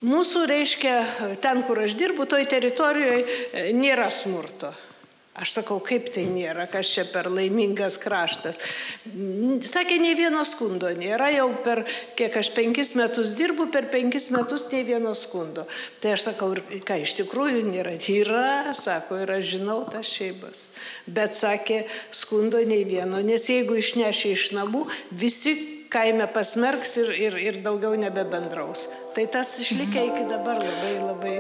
Mūsų, reiškia, ten, kur aš dirbu, toj teritorijoje nėra smurto. Aš sakau, kaip tai nėra, kas čia per laimingas kraštas. Sakė, nei vieno skundo nėra, jau per, kiek aš 5 metus dirbu, per 5 metus nei vieno skundo. Tai aš sakau, ką iš tikrųjų nėra? Yra, sako, ir aš žinau tas šeimas. Bet sakė, skundo nei vieno, nes jeigu išnešė iš namų, visi kaime pasmerks ir daugiau nebebendraus. Tai tas išlikę iki dabar labai, labai.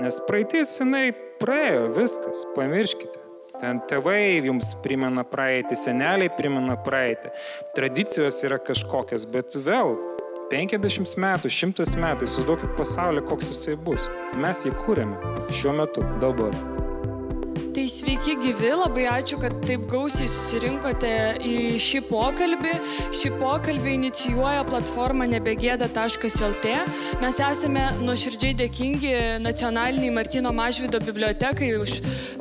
Nes praeitis, jinai praėjo, viskas, pamirškite. Ten tėvai jums primena praeitį, seneliai primena praeitį. Tradicijos yra kažkokios, bet vėl 50 metų, 100 metų, įsivaizduokit pasaulį, koks jisai bus. Mes jį kūrėme šiuo metu, dabar. Tai sveiki gyvi, labai ačiū, kad taip gausiai susirinkote į šį pokalbį. Šį pokalbį inicijuoja platforma nebegėda.lt. Mes esame nuoširdžiai dėkingi Nacionaliniai Martyno Mažvydo bibliotekai už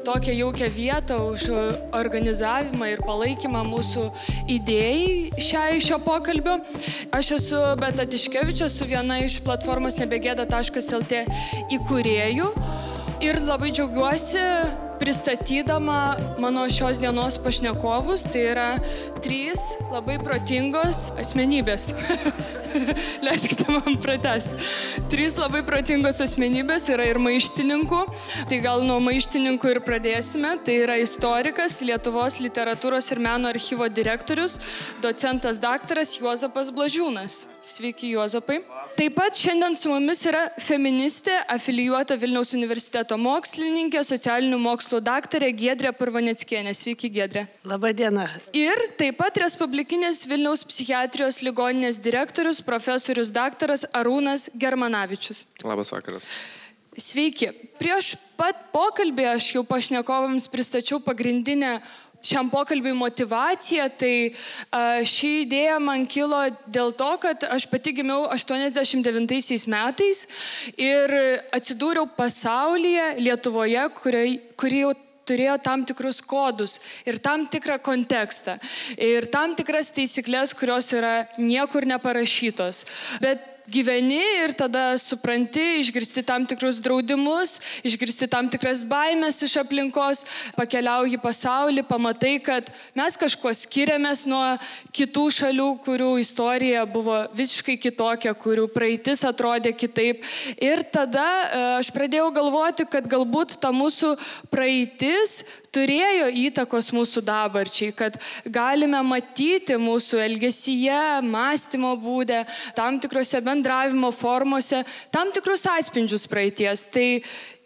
tokią jaukią vietą, už organizavimą ir palaikymą mūsų idėjai šio pokalbio. Aš esu Beata Tiškevič, esu viena iš platformos nebegėda.lt įkūrėjų ir labai džiaugiuosi pristatydama mano šios dienos pašnekovus. Tai yra 3 labai protingos asmenybės. Leiskite man pratęsti. 3 labai protingos asmenybės, yra ir maištininkų. Tai gal nuo maištininkų ir pradėsime. Tai yra istorikas, Lietuvos literatūros ir meno archyvo direktorius, docentas daktaras Juozapas Blažiūnas. Sveiki, Juozapai. Taip pat šiandien su mumis yra feministė, afilijuota Vilniaus universiteto mokslininkė, socialinių mokslų daktarė Giedrė Purvaneckienė. Sveiki, Giedrė. Labą dieną. Ir taip pat Respublikinės Vilniaus psichiatrijos ligoninės direktorius, profesorius daktaras Arūnas Germanavičius. Labas vakaras. Sveiki. Prieš pat pokalbį aš jau pašnekovams pristačiau pagrindinę šiam pokalbiui motyvacija. Tai ši idėja man kilo dėl to, kad aš pati gimiau 89 metais ir atsidūriau pasaulyje, Lietuvoje, kuri jau turėjo tam tikrus kodus ir tam tikrą kontekstą ir tam tikras taisyklės, kurios yra niekur neparašytos. Bet gyveni ir tada supranti, išgirsti tam tikrus draudimus, išgirsti tam tikras baimės iš aplinkos, pakeliauji pasaulį, pamatai, kad mes kažkuo skiriamės nuo kitų šalių, kurių istorija buvo visiškai kitokia, kurių praeitis atrodė kitaip. Ir tada aš pradėjau galvoti, kad galbūt ta mūsų praeitis turėjo įtakos mūsų dabarčiai, kad galime matyti mūsų elgesyje, mąstymo būde, tam tikrose bendravimo formose, tam tikrus atspindžius praeities. Tai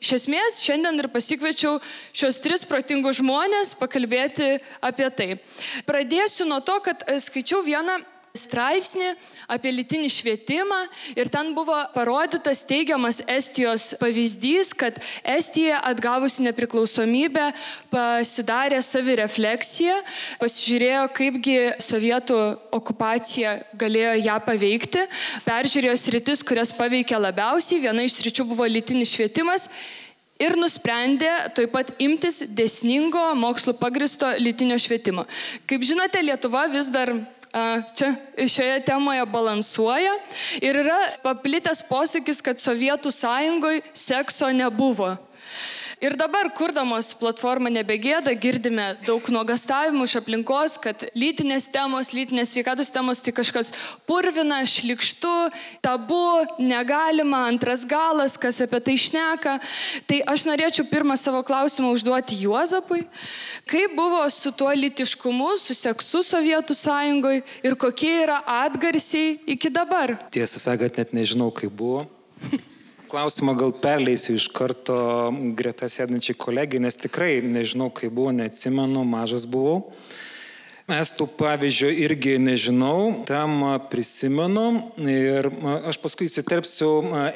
iš esmės šiandien ir pasikviečiau šios 3 protingus žmonės pakalbėti apie tai. Pradėsiu nuo to, kad skaičiau vieną straipsnį apie lytinį švietimą ir ten buvo parodytas teigiamas Estijos pavyzdys, kad Estija atgavusi nepriklausomybę pasidarė savirefleksiją, pasižiūrėjo, kaipgi sovietų okupacija galėjo ją paveikti, peržiūrėjo sritis, kurias paveikė labiausiai, viena iš sričių buvo lytinis švietimas ir nusprendė taip pat imtis dėsningo mokslo pagristo lytinio švietimo. Kaip žinote, Lietuva vis dar čia šioje temoje balansuoja ir yra paplitęs posakis, kad Sovietų sąjungoje sekso nebuvo. Ir dabar, kurdamos platformą Nebegėda, girdime daug nuogastavimų iš aplinkos, kad lytinės temos, lytinės sveikatos temos tai kažkas purvina, šlykštu, tabu, negalima, antras galas, kas apie tai šneka. Tai aš norėčiau pirmą savo klausimą užduoti Juozapui. Kaip buvo su tuo lytiškumu, su seksu Sovietų sąjungoje ir kokie yra atgarsiai iki dabar? Tiesą sakant, net nežinau, kaip buvo. Klausimą gal perleisiu iš karto greta sėdančiai kolegai, nes tikrai nežinau, kaip buvo, neatsimenu, mažas buvau. Estų pavyzdžio irgi nežinau, tam prisimenu ir aš paskui įsiterpsiu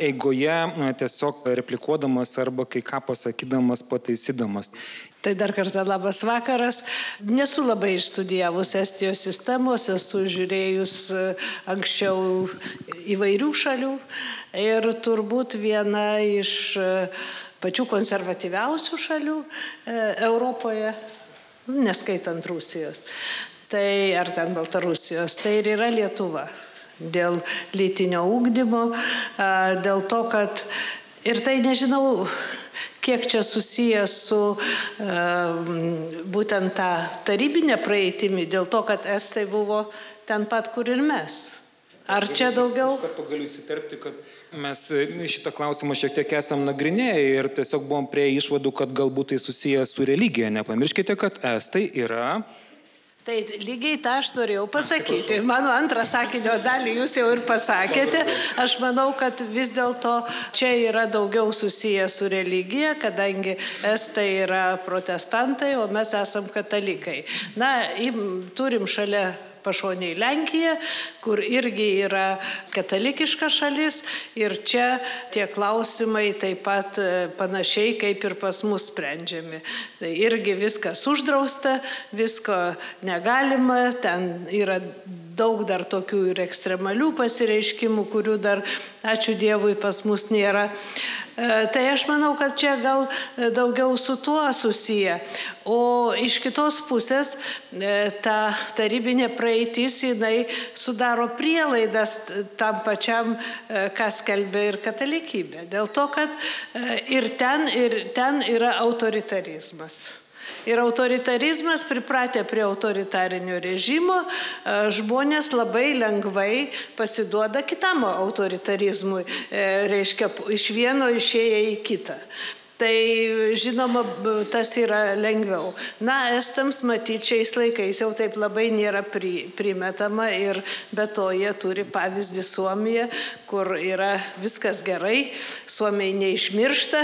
eigoje tiesiog replikuodamas arba kai ką pasakydamas, pataisydamas. Tai dar kartą labas vakaras. Nesu labai išstudijavus Estijos sistemos, esu žiūrėjus anksčiau įvairių šalių ir turbūt viena iš pačių konservatyviausių šalių Europoje, neskaitant Rusijos, tai ar ten Baltarusijos, tai ir yra Lietuva. dėl lytinio ugdymo, dėl to, kad ir tai nežinau, kiek čia susijęs su būtent tą tarybinę praeitimi, dėl to, kad estai buvo ten pat, kur ir mes. Ar čia daugiau? Iš karto galiu įsiterpti, kad mes šitą klausimą šiek tiek esam nagrinėję ir tiesiog buvom prie išvadų, kad galbūt tai susijęs su religija. Nepamirškite, kad estai yra... Tai lygiai tą aš norėjau pasakyti. Mano antrą sakinio dalį jūs jau ir pasakėte. Aš manau, kad vis dėlto čia yra daugiau susiję su religija, kadangi estai yra protestantai, o mes esam katalikai. Na, turim šalia pašoniai Lenkiją, kur irgi yra katalikiška šalis ir čia tie klausimai taip pat panašiai kaip ir pas mus sprendžiami. Tai irgi viskas uždrausta, visko negalima, ten yra daug dar tokių ir ekstremalių pasireiškimų, kurių dar, ačiū Dievui, pas mus nėra. Tai aš manau, kad čia gal daugiau su tuo susiję. O iš kitos pusės ta tarybinė praeitis, jinai sudaro prielaidas tam pačiam, kas skelbia ir katalikybė. Dėl to, kad ir ten yra autoritarizmas. Ir autoritarizmas, pripratę prie autoritarinio režimo, žmonės labai lengvai pasiduoda kitam autoritarizmui, reiškia, iš vieno išėję į kitą. Tai, žinoma, tas yra lengviau. Na, estams matyti šiais laikais jau taip labai nėra primetama ir be to jie turi pavyzdį Suomiją, kur yra viskas gerai, Suomiai neišmiršta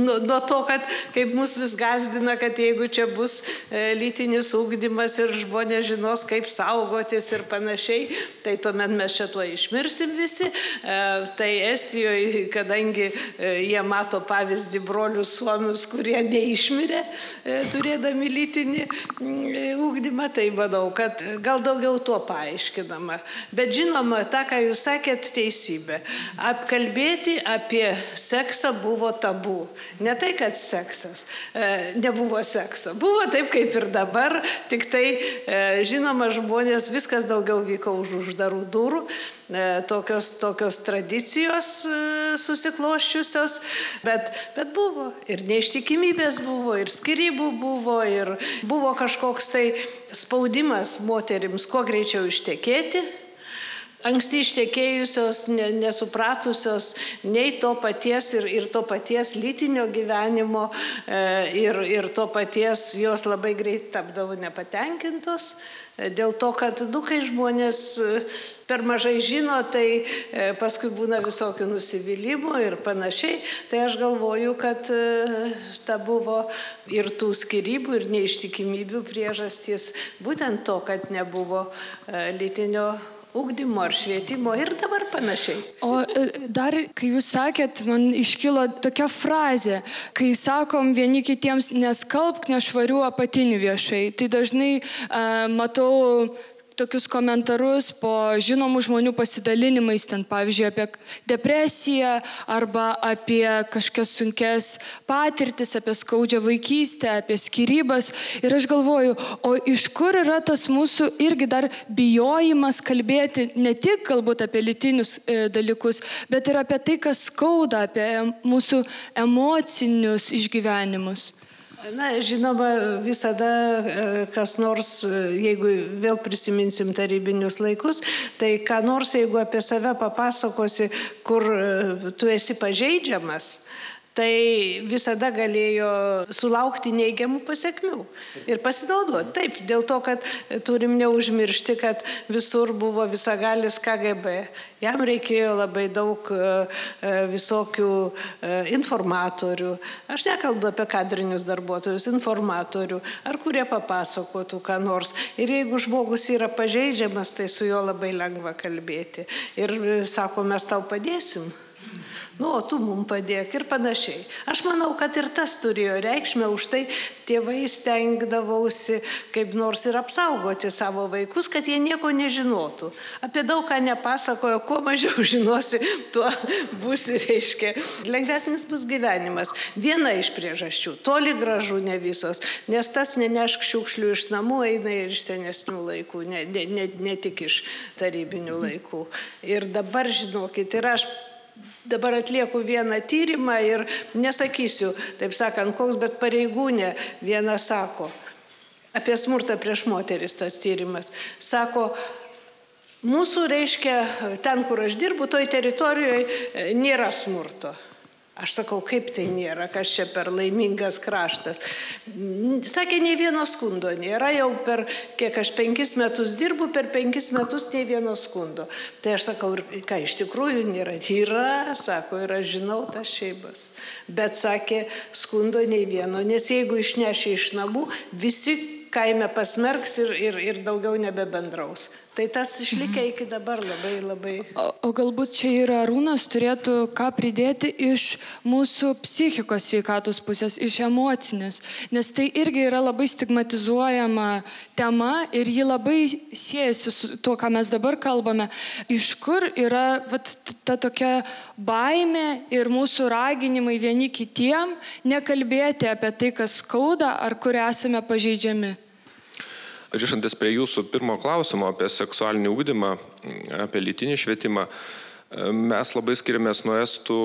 nuo to, kad kaip mus vis gąsdina, kad jeigu čia bus lytinis ugdymas ir žmonės žinos, kaip saugotis ir panašiai, tai tuomet mes čia tuo išmirsim visi. Tai Estijoje, kadangi jie mato pavyzdį brolių suomius, kurie neišmirė, turėdami lytinį ugdymą, tai manau, kad gal daugiau tuo paaiškinama. Bet žinoma, tą, ką jūs sakėt, teisybė. Apkalbėti apie seksą buvo tabu. Ne tai, kad seksas, nebuvo sekso. Buvo taip, kaip ir dabar, tik tai, žinoma, žmonės, viskas daugiau vyko už uždarų durų. Tokios tradicijos susikloščiusios, bet buvo ir neištikimybės buvo, ir skyrybų buvo, ir buvo kažkoks tai spaudimas moterims kuo greičiau ištekėti. Anksti ištekėjusios, nesupratusios nei to paties ir to paties lytinio gyvenimo ir to paties jos labai greit tapdavo nepatenkintos. Dėl to, kad, kai žmonės per mažai žino, tai paskui būna visokių nusivylimų ir panašiai. Tai aš galvoju, kad ta buvo ir tų skyrybų, ir neištikimybių priežastis būtent to, kad nebuvo lytinio ugdymo ar švietimo ir dabar panašiai. O dar, kai jūs sakėt, man iškilo tokia frazė, kai sakom vieni kitiems neskalbk nešvarių apatinių viešai, tai dažnai matau tokius komentarus po žinomų žmonių pasidalinimais, ten pavyzdžiui apie depresiją arba apie kažkokias sunkes patirtis, apie skaudžią vaikystę, apie skyrybas. Ir aš galvoju, o iš kur yra tas mūsų irgi dar bijojimas kalbėti ne tik galbūt apie lytinius dalykus, bet ir apie tai, kas skauda, apie mūsų emocinius išgyvenimus. Na, žinoma, visada kas nors, jeigu vėl prisiminsim tarybinius laikus, tai ką nors, jeigu apie save papasakosi, kur tu esi pažeidžiamas, tai visada galėjo sulaukti neigiamų pasekmių ir pasinaudoti. Taip, dėl to, kad turim neužmiršti, kad visur buvo visagalis KGB. Jam reikėjo labai daug visokių informatorių. Aš nekalbu apie kadrinius darbuotojus, informatorių, ar kurie papasakotų ką nors. Ir jeigu žmogus yra pažeidžiamas, tai su juo labai lengva kalbėti. Ir sako, mes tau padėsim. o tu mums padėk ir panašiai. Aš manau, kad ir tas turėjo reikšmę, už tai tėvai stengdavausi kaip nors ir apsaugoti savo vaikus, kad jie nieko nežinotų. Apie daug ką nepasakojo, kuo mažiau žinosi, tuo būsi, reiškia, lengvesnis bus gyvenimas. Viena iš priežasčių, toli gražu ne visos, nes tas nenešk šiukšlių iš namų eina ir iš senesnių laikų, ne tik iš tarybinių laikų. Ir dabar, žinokit, ir aš dabar atlieku vieną tyrimą ir nesakysiu, taip sakant, koks, bet pareigūnė viena sako, apie smurtą prieš moteris tas tyrimas, sako, mūsų, reiškia, ten, kur aš dirbu, toj teritorijoje nėra smurto. Aš sakau, kaip tai nėra, kas čia per laimingas kraštas. Sakė, nei vieno skundo nėra, jau per, kiek aš 5 metus dirbu, per 5 metus nei vieno skundo. Tai aš sakau, ką iš tikrųjų nėra? Yra, sako, ir aš žinau tas šeimas. Bet sakė, skundo nei vieno, nes jeigu išneši iš namų, visi kaime pasmerks ir daugiau nebebendraus. Tai tas išlikę iki dabar labai. O galbūt čia ir Arūnas turėtų ką pridėti iš mūsų psichikos sveikatos pusės, iš emocinės, nes tai irgi yra labai stigmatizuojama tema ir ji labai siejasi su tuo, ką mes dabar kalbame. Iš kur yra ta tokia baimė ir mūsų raginimai vieni kitiem nekalbėti apie tai, kas skauda ar kur esame pažeidžiami. Grįžtantis prie jūsų pirmo klausimo apie seksualinį ugdymą, apie lytinį švietimą, mes labai skiriamės nuo estų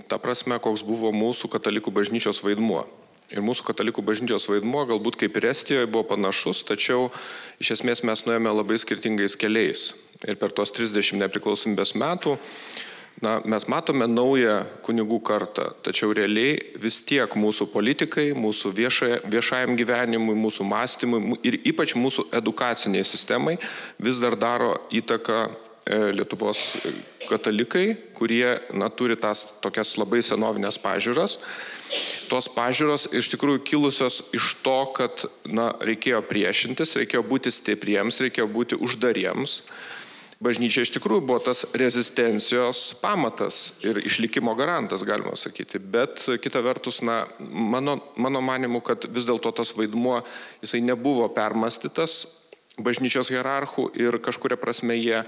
ta prasme, koks buvo mūsų katalikų bažnyčios vaidmuo. Ir mūsų katalikų bažnyčios vaidmuo galbūt kaip ir Estijoje buvo panašus, tačiau iš esmės mes nuėjome labai skirtingais keliais. Ir per tos 30 nepriklausomybės metų mes matome naują kunigų kartą, tačiau realiai vis tiek mūsų politikai, mūsų viešajam gyvenimui, mūsų mąstymui ir ypač mūsų edukaciniai sistemai vis dar daro įtaką Lietuvos katalikai, kurie turi tas tokias labai senovinės pažiūras. Tos pažiūros iš tikrųjų kilusios iš to, kad reikėjo priešintis, reikėjo būti stipriems, reikėjo būti uždariems. Bažnyčia iš tikrųjų buvo tas rezistencijos pamatas ir išlikimo garantas, galima sakyti. Bet kita vertus, mano manimu, kad vis dėlto tas vaidmuo, jisai nebuvo permąstytas bažnyčios hierarchų ir kažkuria prasme jie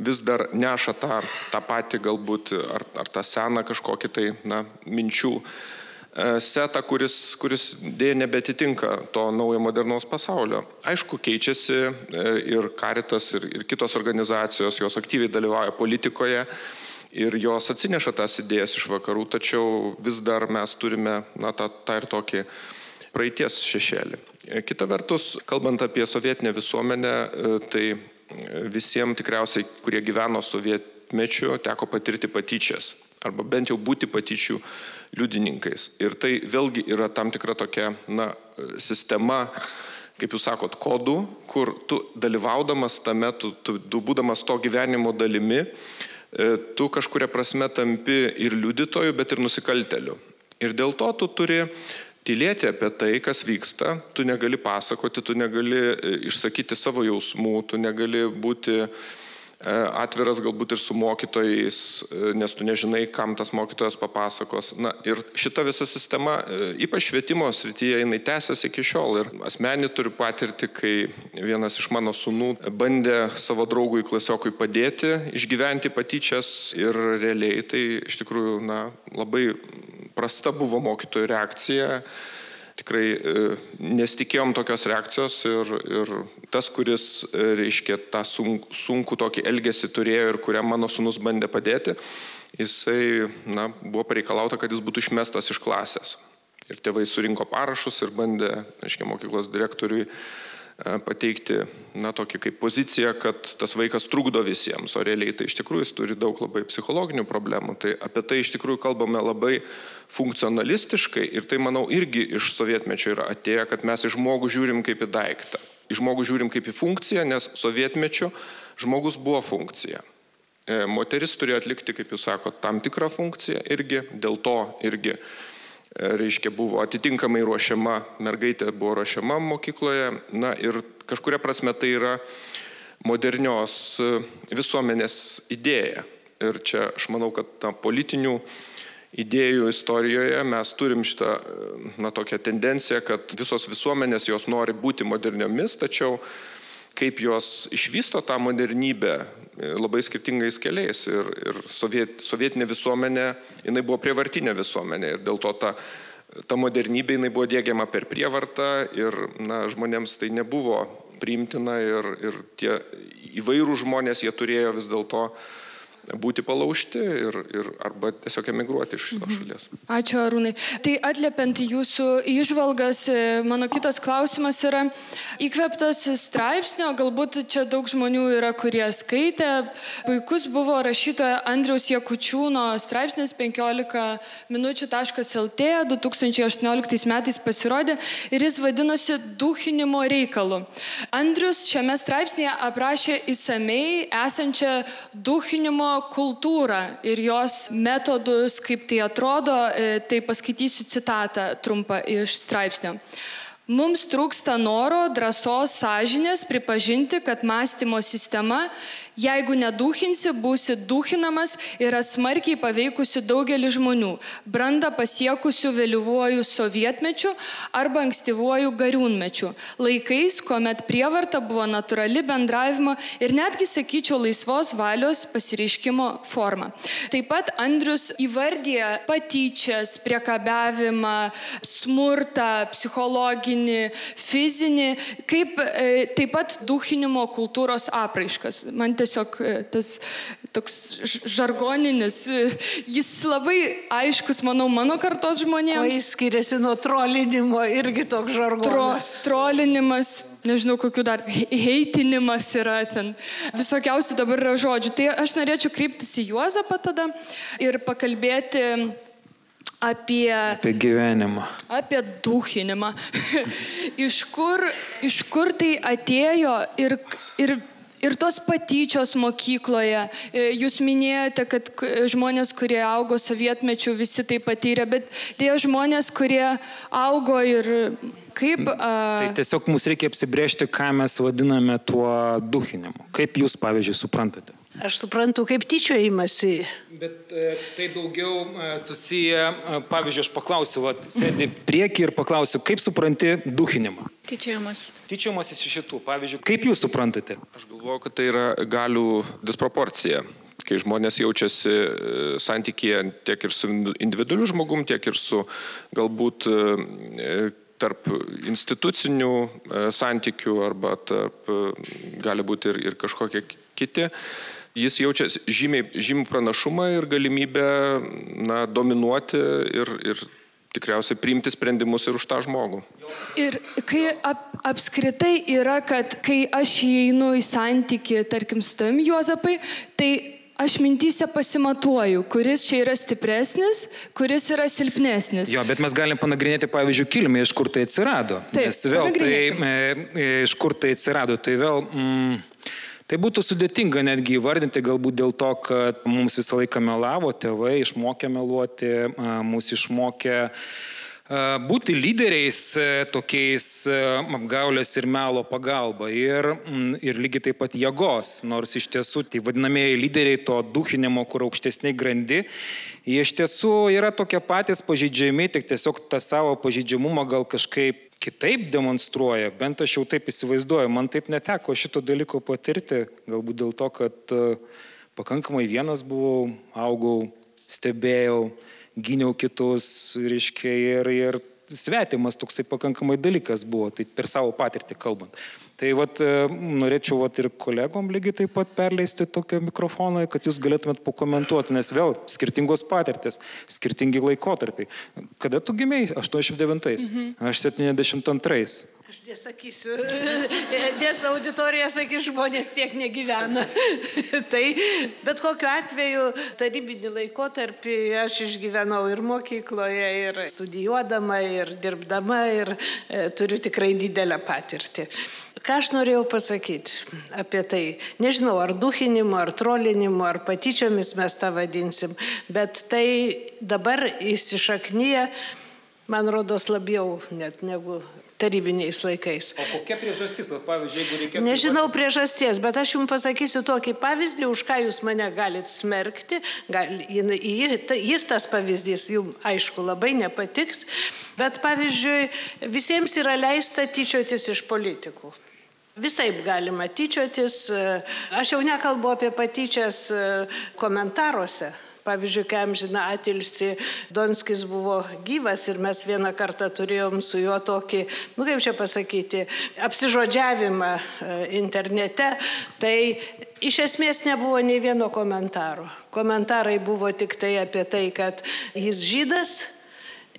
vis dar neša tą patį galbūt ar tą seną kažkokį tai minčių setą, kuris dėja nebetitinka to naujo modernaus pasaulio. Aišku, keičiasi ir Caritas, ir kitos organizacijos, jos aktyviai dalyvauja politikoje ir jos atsineša tas idėjas iš vakarų, tačiau vis dar mes turime tą ir tokį praeities šešėlį. Kita vertus, kalbant apie sovietinę visuomenę, tai visiems tikriausiai, kurie gyveno sovietmečiu, teko patirti patyčias arba bent jau būti patyčių liudininkais. Ir tai vėlgi yra tam tikra tokia sistema, kaip jūs sakot, kodų, kur tu dalyvaudamas tame, tu būdamas to gyvenimo dalimi, tu kažkuria prasme tampi ir liudytoju, bet ir nusikalteliu. Ir dėl to tu turi tylėti apie tai, kas vyksta, tu negali pasakoti, tu negali išsakyti savo jausmų, tu negali būti atviras galbūt ir su mokytojais, nes tu nežinai, kam tas mokytojas papasakos. Ir šita visa sistema, ypač švietimo srityje, jinai tęsiasi iki šiol. Ir asmenį turiu patirti, kai vienas iš mano sūnų bandė savo draugui klasiokui padėti išgyventi patyčias ir realiai tai iš tikrųjų labai prasta buvo mokytojų reakcija. Tikrai nesitikėjom tokios reakcijos ir tas, kuris, reiškia, tą sunkų tokį elgesį turėjo ir kuriam mano sūnus bandė padėti, jisai, buvo pareikalauta, kad jis būtų išmestas iš klasės. Ir tėvai surinko parašus ir bandė, reiškia, mokyklos direktoriui pateikti, tokį kaip poziciją, kad tas vaikas trukdo visiems, o realiai tai iš tikrųjų jis turi daug labai psichologinių problemų. Tai apie tai iš tikrųjų kalbame labai funkcionalistiškai ir tai, manau, irgi iš sovietmečio yra atėję, kad mes į žmogų žiūrim kaip į daiktą. Į žmogų žiūrim kaip į funkciją, nes sovietmečio žmogus buvo funkcija. Moteris turėjo atlikti, kaip jūs sakote, tam tikrą funkciją irgi, dėl to irgi reiškia, buvo atitinkamai ruošiama, mergaitė buvo ruošiama mokykloje, ir kažkuria prasme tai yra modernios visuomenės idėja. Ir čia aš manau, kad politinių idėjų istorijoje mes turim šitą tokią tendenciją, kad visos visuomenės jos nori būti moderniomis, tačiau kaip jos išvysto tą modernybę labai skirtingais keliais. Ir sovietinė visuomenė, jinai buvo prievartinė visuomenė ir dėl to ta modernybė jinai buvo diegiama per prievartą ir žmonėms tai nebuvo priimtina ir tie įvairūs žmonės, jie turėjo vis dėlto būti palaužti ir arba tiesiog emigruoti iš šitos šalies. Ačiū, Arūnai. Tai atliepiant jūsų įžvalgas, mano kitas klausimas yra įkvėptas straipsnio, galbūt čia daug žmonių yra, kurie skaitė. Puikus buvo rašytojo Andriaus Jakučiūno straipsnis 15minučių.lt 2018 metais pasirodė ir jis vadinosi Duchinimo reikalu. Andrius šiame straipsnėje aprašė išsamei esančią duchinimo kultūrą ir jos metodus, kaip tai atrodo, tai paskaitysiu citatą trumpą iš straipsnio. Mums trūksta noro, drąsos, sąžinės pripažinti, kad mąstymo sistema, jeigu neduchinsi, būsi duchinamas, yra smarkiai paveikusi daugelį žmonių, brandą pasiekusių vėlyvuoju sovietmečiu arba ankstyvuoju gariūnmečiu, laikais, kuomet prievarta buvo natūrali bendravimo ir netgi, sakyčiau, laisvos valios pasireiškimo forma. Taip pat Andrius įvardija patyčias, priekabiavimą, smurtą, psichologinį, fizinį, kaip taip pat duchinimo kultūros apraiškas. Man tiesiog tas toks žargoninis, jis labai aiškus, manau, mano kartos žmonėms. O jis skiriasi nuo trolinimo, irgi toks žargonas. Trolinimas, nežinau, kokių dar, heitinimas yra ten, visokiausių dabar yra žodžių. Tai aš norėčiau kreiptis į Juozapą tada ir pakalbėti apie gyvenimą. Apie duchinimą. Iš kur tai atėjo ir tos patyčios mokykloje. Jūs minėjote, kad žmonės, kurie augo sovietmečiu, visi tai patyrė, bet tie žmonės, kurie augo ir kaip... Tai tiesiog mums reikia apsibrėžti, ką mes vadiname tuo duchinimu. Kaip jūs, pavyzdžiui, suprantate? Aš suprantu, kaip tyčiojimasi. Bet tai daugiau susiję, pavyzdžiui, aš paklausiu, sėdi prieki ir paklausiu, kaip supranti duchinimą? Tyčiojimas. Tyčiojimas iš šitų, pavyzdžiui, kaip jūs suprantate? Aš galvoju, kad tai yra galių disproporcija, kai žmonės jaučiasi santykyje tiek ir su individualiu žmogum, tiek ir su galbūt tarp institucinių santykių arba tarp, gali būti ir kažkokie kiti. Jis jaučia žymiai pranašumą ir galimybę dominuoti ir tikriausiai priimti sprendimus ir už tą žmogų. Ir kai apskritai yra, kad kai aš įeinu į santykį, tarkim, su tavim, Juozapai, tai aš mintyse pasimatuoju, kuris čia yra stipresnis, kuris yra silpnesnis. Jo, bet mes galim panagrinėti, pavyzdžiui, kilmę, iš kur tai atsirado. Taip, nes vėl iš kur tai atsirado, tai vėl... Tai būtų sudėtinga netgi įvardinti, galbūt dėl to, kad mums visą laiką melavo tėvai, išmokė meluoti, mus išmokė būti lyderiais tokiais apgaulės ir melo pagalba ir lygiai taip pat jėgos, nors iš tiesų tai vadinamieji lyderiai to duchinimo, kur aukštesniai grandi, jie iš tiesų yra tokie patys pažeidžiami, tik tiesiog tą savo pažeidžiamumą gal kažkaip kitaip demonstruoja, bent aš jau taip įsivaizduoju, man taip neteko šito dalyko patirti, galbūt dėl to, kad pakankamai vienas buvau, augau, stebėjau, gyniau kitus, reiškia, ir svetimas toksai pakankamai dalykas buvo, tai per savo patirtį kalbant. Tai norėčiau ir kolegom lygiai taip pat perleisti tokią mikrofoną, kad jūs galėtumėt pakomentuoti, nes vėl skirtingos patirtis, skirtingi laikotarpiai. Kada tu gimei? 89. Aš 72. Aš nesakysiu, nes auditorija sakys, žmonės tiek negyvena. Tai bet kokiu atveju tarybinį laikotarpį aš išgyvenau ir mokykloje, ir studijuodama, ir dirbdama, ir turiu tikrai didelę patirtį. Ką aš norėjau pasakyti apie tai? Nežinau, ar duchinimu, ar trolinimu, ar patyčiomis mes tą vadinsim, bet tai dabar įsišaknyja, man rodos, labiau net negu tarybiniais laikais. O kokia priežastis, pavyzdžiui, jeigu reikėtų... Nežinau priežasties, bet aš jums pasakysiu tokį pavyzdį, už ką jūs mane galite smerkti. Jis tas pavyzdys jums, aišku, labai nepatiks, bet pavyzdžiui, visiems yra leista tyčiotis iš politikų. Visaip galima tyčiotis. Aš jau nekalbu apie patyčias komentaruose. Pavyzdžiui, kai amžiną atilsį Donskis buvo gyvas ir mes vieną kartą turėjom su juo tokį, kaip čia pasakyti, apsižodžiavimą internete, tai iš esmės nebuvo nei vieno komentaro. Komentarai buvo tik tai apie tai, kad jis žydas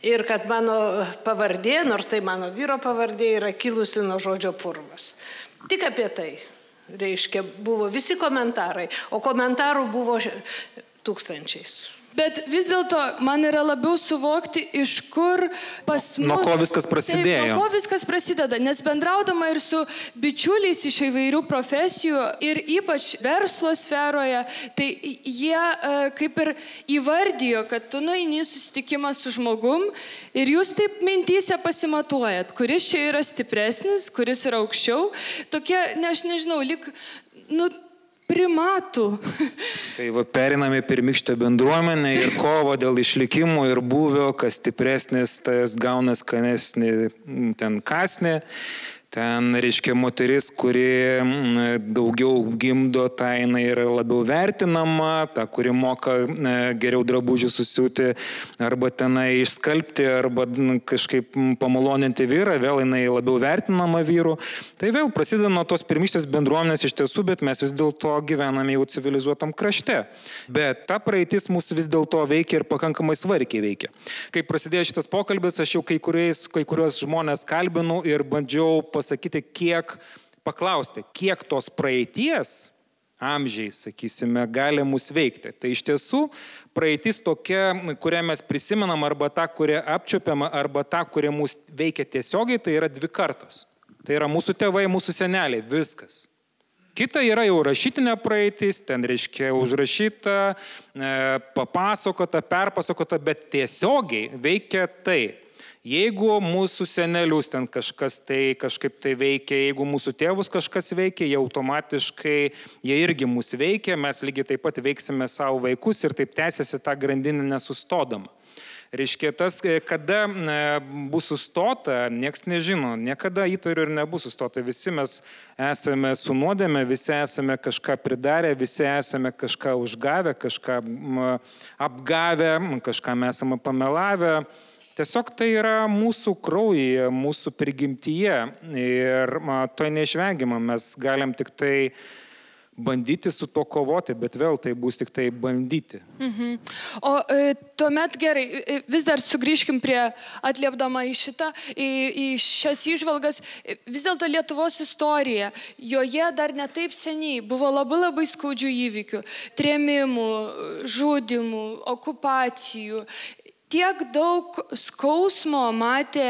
ir kad mano pavardė, nors tai mano vyro pavardė, yra kilusi nuo žodžio purvas. Tik apie tai, reiškia, buvo visi komentarai, o komentarų buvo tūkstančiais. Bet vis dėlto man yra labiau suvokti, iš kur pas mus... Nuo ko viskas prasidėjo. Taip, nuo ko viskas prasideda, nes bendraudama ir su bičiuliais iš įvairių profesijų ir ypač verslo sferoje, tai jie kaip ir įvardijo, kad tu nueini susitikimą su žmogum ir jūs taip mintyse pasimatuojat, kuris čia yra stipresnis, kuris yra aukščiau. Tokie, aš nežinau, lyg... primatų. Tai periname pirmykštę bendruomenę ir kovo dėl išlikimo ir buvio, kas stipresnis, tas gauna skanesnį ten kasnį. Ten, reiškia, moteris, kuri daugiau gimdo, ta jinai yra labiau vertinama, ta, kuri moka geriau drabužių susiūti, arba tenai išskalbti, arba kažkaip pamaloninti vyrą, vėl jinai labiau vertinama vyrų. Tai vėl prasideda nuo tos pirmystės bendruomenės iš tiesų, bet mes vis dėlto gyvename jau civilizuotam krašte. Bet ta praeitis mūsų vis dėlto veikia ir pakankamai svarkiai veikia. Kai prasidėjo šitas pokalbis, aš jau kai kurios žmonės kalbinu ir bandžiau pasakyti, paklausti, kiek tos praeities amžiai, sakysime, gali mus veikti. Tai iš tiesų praeitis tokia, kurią mes prisimenam, arba ta, kurią apčiuopiam, arba ta, kuri mus veikia tiesiogiai, tai yra 2 kartos. Tai yra mūsų tėvai, mūsų seneliai, viskas. Kita yra jau rašytinė praeitis, ten reiškia užrašyta, papasakota, perpasakota, bet tiesiogiai veikia tai. Jeigu mūsų senelius ten kažkaip tai veikia, jeigu mūsų tėvus kažkas veikia, jie automatiškai, jie irgi mus veikia, mes lygiai taip pat veiksime savo vaikus ir taip tęsiasi tą grandinę nesustodama. Reiškia, tas, kada bus sustota, nieks nežino, niekada įtariu ir nebus sustota. Visi mes esame su nuodėme, visi esame kažką pridarę, visi esame kažką užgavę, kažką apgavę, kažką mes esame pamelavę. Tiesiog tai yra mūsų kraujyje, mūsų prigimtyje ir to neišvengiama. Mes galim tik tai bandyti su to kovoti, bet vėl tai bus tik tai bandyti. O tuomet gerai, vis dar sugrįžkim prie atliepdama į šias įžvalgas, vis dėlto Lietuvos istorija, joje dar netaip seniai buvo labai skaudžių įvykių, trėmimų, žudimų, okupacijų. Tiek daug skausmo matė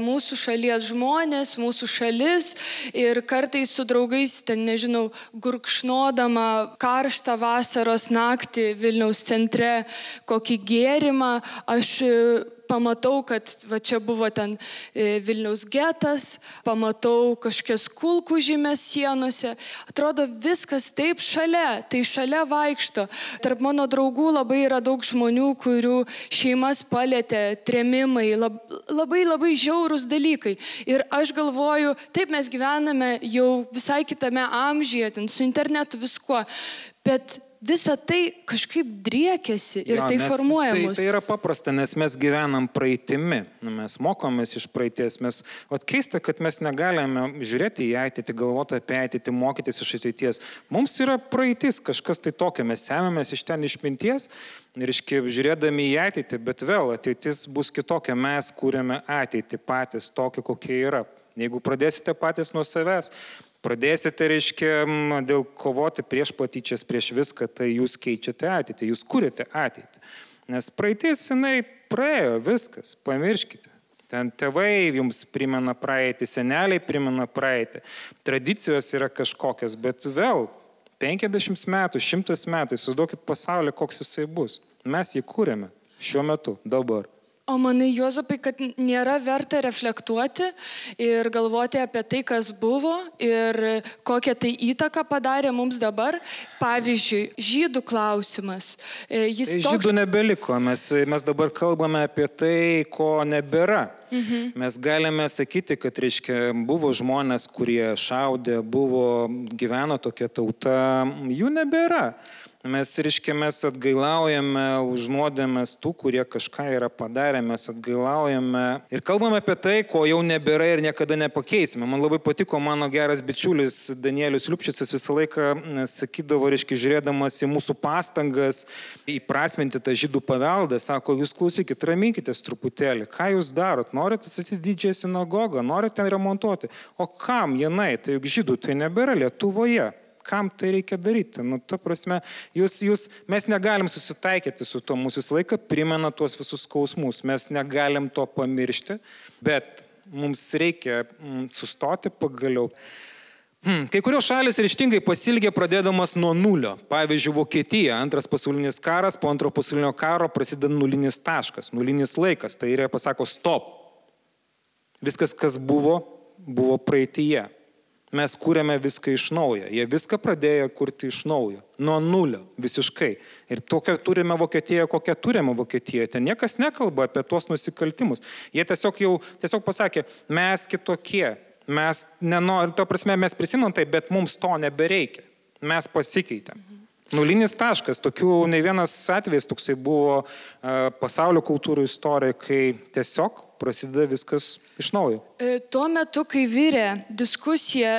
mūsų šalies žmonės, mūsų šalis ir kartais su draugais, ten nežinau, gurkšnodama karštą vasaros naktį Vilniaus centre kokį gėrimą, aš pamatau, kad va čia buvo ten Vilniaus getas, pamatau kažkokias kulkų žymės sienose. Atrodo, viskas taip šalia, tai šalia vaikšto. Tarp mano draugų labai yra daug žmonių, kurių šeimas palėtė trėmimai, labai žiaurūs dalykai. Ir aš galvoju, taip mes gyvename jau visai kitame amžiuje, ten su internetu viskuo, bet visa tai kažkaip driekiasi ir tai formuoja mus. Tai yra paprasta, nes mes gyvenam praeitimi, mes mokomės iš praeities, keista, kad mes negalime žiūrėti į ateitį, galvoti apie ateitį, mokytis iš ateities. Mums yra praeitis, kažkas tai tokio, mes semėmės iš ten išminties ir žiūrėdami į ateitį, bet vėl ateitis bus kitokia, mes kūrėme ateitį patys tokia, kokia yra. Jeigu pradėsite patys nuo savęs, pradėsite, dėl kovoti prieš patyčias, prieš viską, tai jūs keičiate ateitį, jūs kūrėte ateitį. Nes praeitis, jinai praėjo, viskas, pamirškite. Ten tėvai jums primena praeitį, seneliai primena praeitį, tradicijos yra kažkokios, bet vėl 50 metų, 100 metų, įsivaizduokit pasaulį, koks jisai bus. Mes jį kūrėme šiuo metu, dabar. O manai, Juozapai, kad nėra verta reflektuoti ir galvoti apie tai, kas buvo ir kokią tai įtaką padarė mums dabar. Pavyzdžiui, žydų klausimas. Žydų nebeliko, mes dabar kalbame apie tai, ko nebėra. Mes galime sakyti, kad, reiškia, buvo žmonės, kurie šaudė, gyveno tokia tauta, jų nebėra. Mes atgailaujame už nuodėmes tų, kurie kažką yra padarę, mes atgailaujame ir kalbame apie tai, ko jau nebėra ir niekada nepakeisime. Man labai patiko mano geras bičiulis Danielius Liupšicas visą laiką sakydavo, žiūrėdamas į mūsų pastangas įprasminti tą žydų paveldą, sako, jūs klausykit, raminkitės truputėlį, ką jūs darot, norite statyti didžiąją sinagogą, norite remontuoti, o kam jinai, tai juk žydų tai nebėra Lietuvoje. Kam tai reikia daryti? Ta prasme, mes negalim susitaikyti su to, mūsų visą laiką primena tuos visus skausmus, mes negalim to pamiršti, bet mums reikia sustoti pagaliau. Kai kurios šalis ryžtingai pasilgė pradėdamas nuo nulio. Pavyzdžiui, Vokietija, Antras pasaulinis karas, po Antro pasaulinio karo prasideda nulinis taškas, nulinis laikas, tai yra pasako stop. Viskas, kas buvo praeityje. Mes kūrėme viską iš naujo. Jie viską pradėjo kurti iš naujo. Nuo nulio, visiškai. Ir tokią turime Vokietiją, kokią turime Vokietiją. Ten niekas nekalba apie tuos nusikaltimus. Jie tiesiog pasakė, mes kitokie. Mes mes prisimam tai, bet mums to nebereikia. Mes pasikeitėm. Nulinis taškas. Tokių ne vienas atvejis toksai buvo pasaulio kultūrų istorijoje, kai tiesiog prasideda viskas iš naujo. Tuo metu, kai vyrė diskusija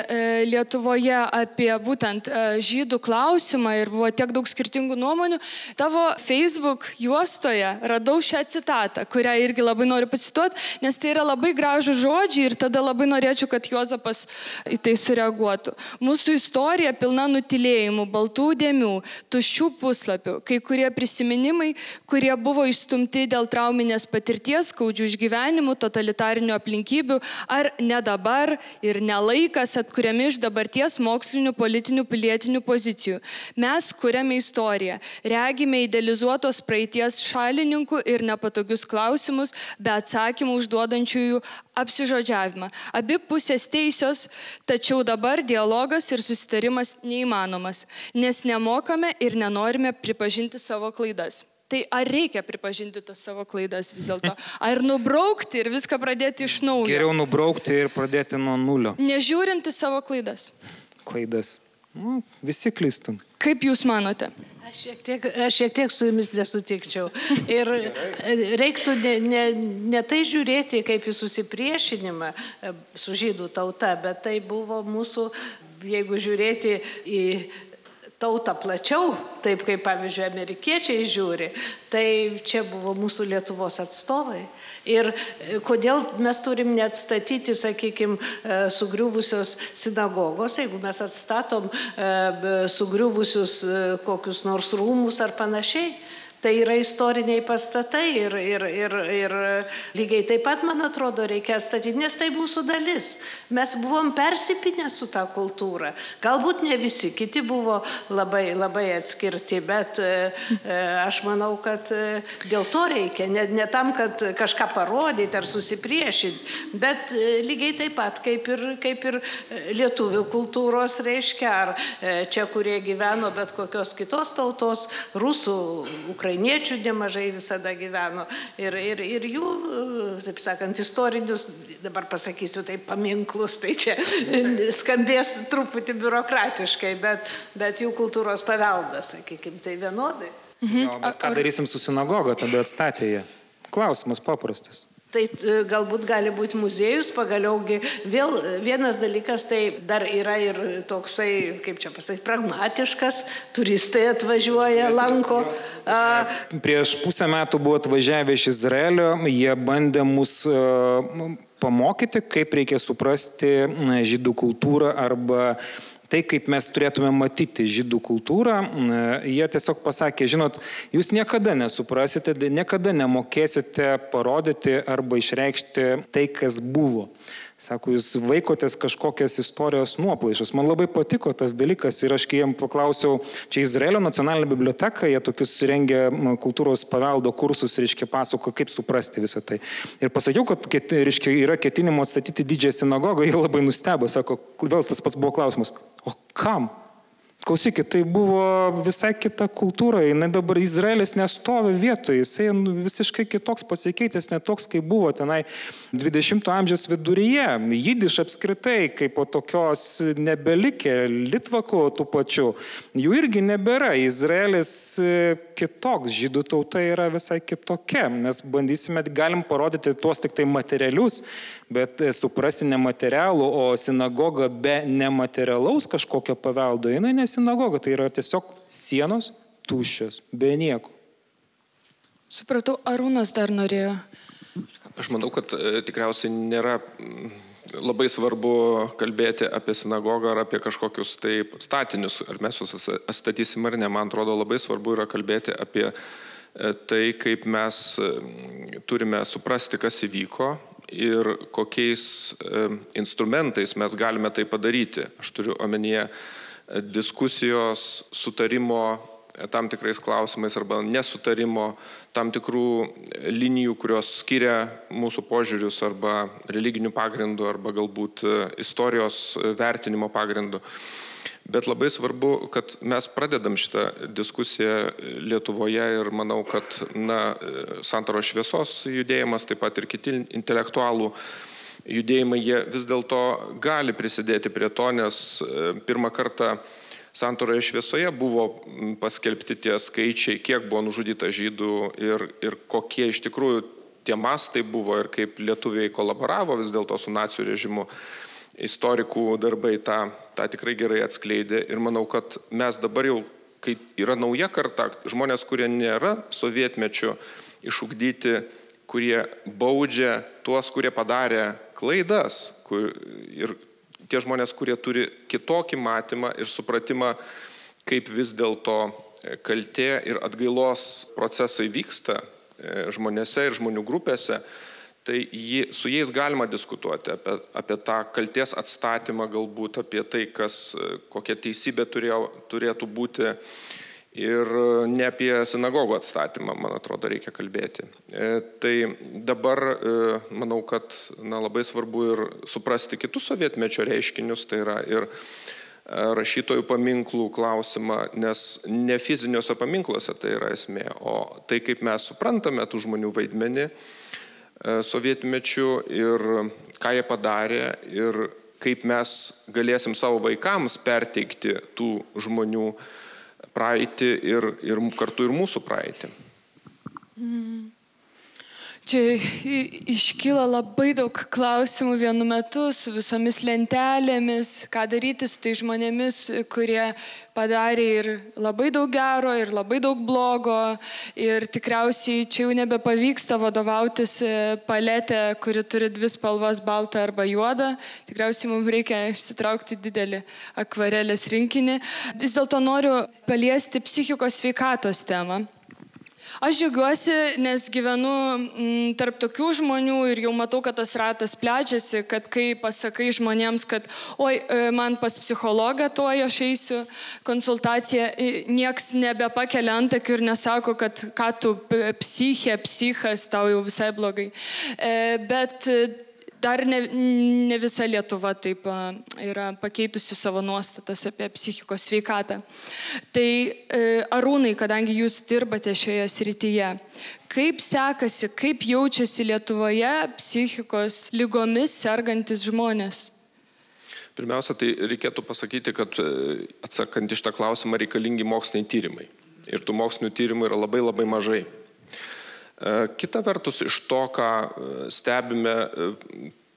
Lietuvoje apie būtent žydų klausimą ir buvo tiek daug skirtingų nuomonių, tavo Facebook juostoje radau šią citatą, kurią irgi labai noriu pacituoti, nes tai yra labai gražų žodžiai ir tada labai norėčiau, kad Juozapas į tai sureaguotų. Mūsų istorija pilna nutilėjimų, baltų dėmių, tuščių puslapių, kai kurie prisiminimai, kurie buvo išstumti dėl trauminės patirties, skaudžių išgyvenimų, totalitarinių aplinkybių, ar ne dabar ir nelaikas atkuriami iš dabarties mokslinių, politinių, pilietinių pozicijų. Mes kuriame istoriją, regime idealizuotos praeities šalininkų ir nepatogius klausimus, be atsakymų užduodančiųjų apsižodžiavimą. Abi pusės teisios, tačiau dabar dialogas ir susitarimas neįmanomas, nes nemokame ir nenorime pripažinti savo klaidas. Tai ar reikia pripažinti tas savo klaidas vis dėlto? Ar nubraukti ir viską pradėti iš naujo? Geriau nubraukti ir pradėti nuo nulio. Nežiūrinti savo klaidas. Klaidas. Visi klystam. Kaip jūs manote? Aš šiek tiek su jumis nesutikčiau. Ir reiktų ne tai žiūrėti kaip į susipriešinimą su žydų tauta, bet tai buvo mūsų, jeigu žiūrėti į tautą plačiau, taip kaip, pavyzdžiui, amerikiečiai žiūri, tai čia buvo mūsų Lietuvos atstovai. Ir kodėl mes turim neatstatyti, sakykime, sugriuvusios sinagogos, jeigu mes atstatom sugriuvusius kokius nors rūmus ar panašiai. Tai yra istoriniai pastatai ir lygiai taip pat, man atrodo, reikia atstatyti, nes tai mūsų dalis. Mes buvom persipinę su tą kultūrą. Galbūt ne visi, kiti buvo labai, labai atskirti, bet aš manau, kad dėl to reikia, ne tam, kad kažką parodyti ar susipriešinti, bet lygiai taip pat, kaip ir lietuvių kultūros reiškia, ar čia, kurie gyveno bet kokios kitos tautos, rusų, ukrainiečių nemažai visada gyveno ir jų, taip sakant, istorinius, dabar pasakysiu taip, paminklus, tai čia skambės truputį biurokratiškai, bet jų kultūros paveldas, sakykime, tai vienodai. Bet ką darysim su sinagoga, tada atstatė jie? Klausimas paprastas. Tai galbūt gali būti muziejus, pagaliaugi vėl vienas dalykas, tai dar yra ir toksai, kaip čia pasakyti, pragmatiškas, turistai atvažiuoja, lanko. Prieš pusę metų buvo atvažiavę iš Izraelio, jie bandė mus pamokyti, kaip reikia suprasti žydų kultūrą arba tai, kaip mes turėtume matyti žydų kultūrą. Jie tiesiog pasakė, žinot, jūs niekada nesuprasite, niekada nemokėsite parodyti arba išreikšti tai, kas buvo. Sako, jūs vaikotės kažkokias istorijos nuoplaišas. Man labai patiko tas dalykas ir aš kai jam paklausiau, čia Izraelio nacionalinė biblioteka, jie tokius rengia kultūros paveldo kursus, reiškia, pasako, kaip suprasti visą tai. Ir pasakiau, kad reiškia, yra ketinimo atstatyti didžiąją sinagogą, jie labai nustebo, sako, vėl tas pats buvo klausimas, o kam? Klausykit, tai buvo visai kita kultūra, jinai dabar Izraelis nestovi vietoje, jisai visiškai kitoks pasikeitęs, ne toks, kaip buvo tenai 20 amžiaus viduryje. Jidiš apskritai, kaip po tokios nebelikė, litvakų tų pačių, jų irgi nebėra. Izraelis kitoks, žydų tauta yra visai kitokia. Mes bandysime, galim parodyti tuos tik tai materialius, bet suprasti nematerialų, o sinagoga be nematerialaus kažkokio paveldo, jinai sinagoga, tai yra tiesiog sienos tuščios, be nieko. Supratau, Arūnas dar norėjo. Aš manau, kad tikriausiai nėra labai svarbu kalbėti apie sinagogą ar apie kažkokius tai statinius, ar mes juos atstatysim ar ne. Man atrodo, labai svarbu yra kalbėti apie tai, kaip mes turime suprasti, kas įvyko ir kokiais instrumentais mes galime tai padaryti. Aš turiu omenyje diskusijos, sutarimo tam tikrais klausimais arba nesutarimo, tam tikrų linijų, kurios skiria mūsų požiūrius arba religinių pagrindų arba galbūt istorijos vertinimo pagrindų. Bet labai svarbu, kad mes pradedam šitą diskusiją Lietuvoje ir manau, kad Santaros šviesos judėjimas, taip pat ir kiti intelektualų judėjimai, jie vis dėlto gali prisidėti prie to, nes pirmą kartą Santaroje šviesoje buvo paskelbti tie skaičiai, kiek buvo nužudyta žydų ir kokie iš tikrųjų tie mastai buvo ir kaip lietuviai kolaboravo vis dėlto su nacių režimu. Istorikų darbai tą tikrai gerai atskleidė ir manau, kad mes dabar jau, kai yra nauja karta, žmonės, kurie nėra sovietmečiu išugdyti, kurie baudžia tuos, kurie padarė klaidas ir tie žmonės, kurie turi kitokį matymą ir supratimą, kaip vis dėlto kaltė ir atgailos procesai vyksta žmonėse ir žmonių grupėse, tai su jais galima diskutuoti apie tą kaltės atstatymą, galbūt apie tai, kokia teisybė turėtų būti. Ir ne apie sinagogų atstatymą, man atrodo, reikia kalbėti. Tai dabar manau, kad labai svarbu ir suprasti kitus sovietmečio reiškinius, tai yra ir rašytojų paminklų klausimą, nes ne fiziniuose paminkluose tai yra esmė, o tai, kaip mes suprantame tų žmonių vaidmenį sovietmečiu ir ką jie padarė ir kaip mes galėsim savo vaikams perteikti tų žmonių praeitį ir kartu ir mūsų praeitį. Čia iškyla labai daug klausimų vienu metu su visomis lentelėmis, ką daryti su tai žmonėmis, kurie padarė ir labai daug gero, ir labai daug blogo. Ir tikriausiai čia jau nebepavyksta vadovautis paletė, kuri turi dvi spalvas, baltą arba juodą. Tikriausiai mums reikia išsitraukti didelį akvarelės rinkinį. Vis dėlto noriu paliesti psichikos sveikatos temą. Aš džiaugiuosi, nes gyvenu tarp tokių žmonių ir jau matau, kad tas ratas plečiasi, kad kai pasakai žmonėms, kad man pas psichologą tuoj aš eisiu konsultaciją, nieks nebepakelia antakių ir nesako, kad ką tu psichas, tau jau visai blogai. Bet dar ne visa Lietuva taip yra pakeitusi savo nuostatas apie psichikos sveikatą. Tai Arūnai, kadangi jūs dirbate šioje srityje, kaip sekasi, kaip jaučiasi Lietuvoje psichikos ligomis sergantis žmonės? Pirmiausia, tai reikėtų pasakyti, kad atsakant iš tą klausimą reikalingi moksliniai tyrimai. Ir tų mokslinių tyrimų yra labai labai mažai. Kita vertus, iš to, ką stebime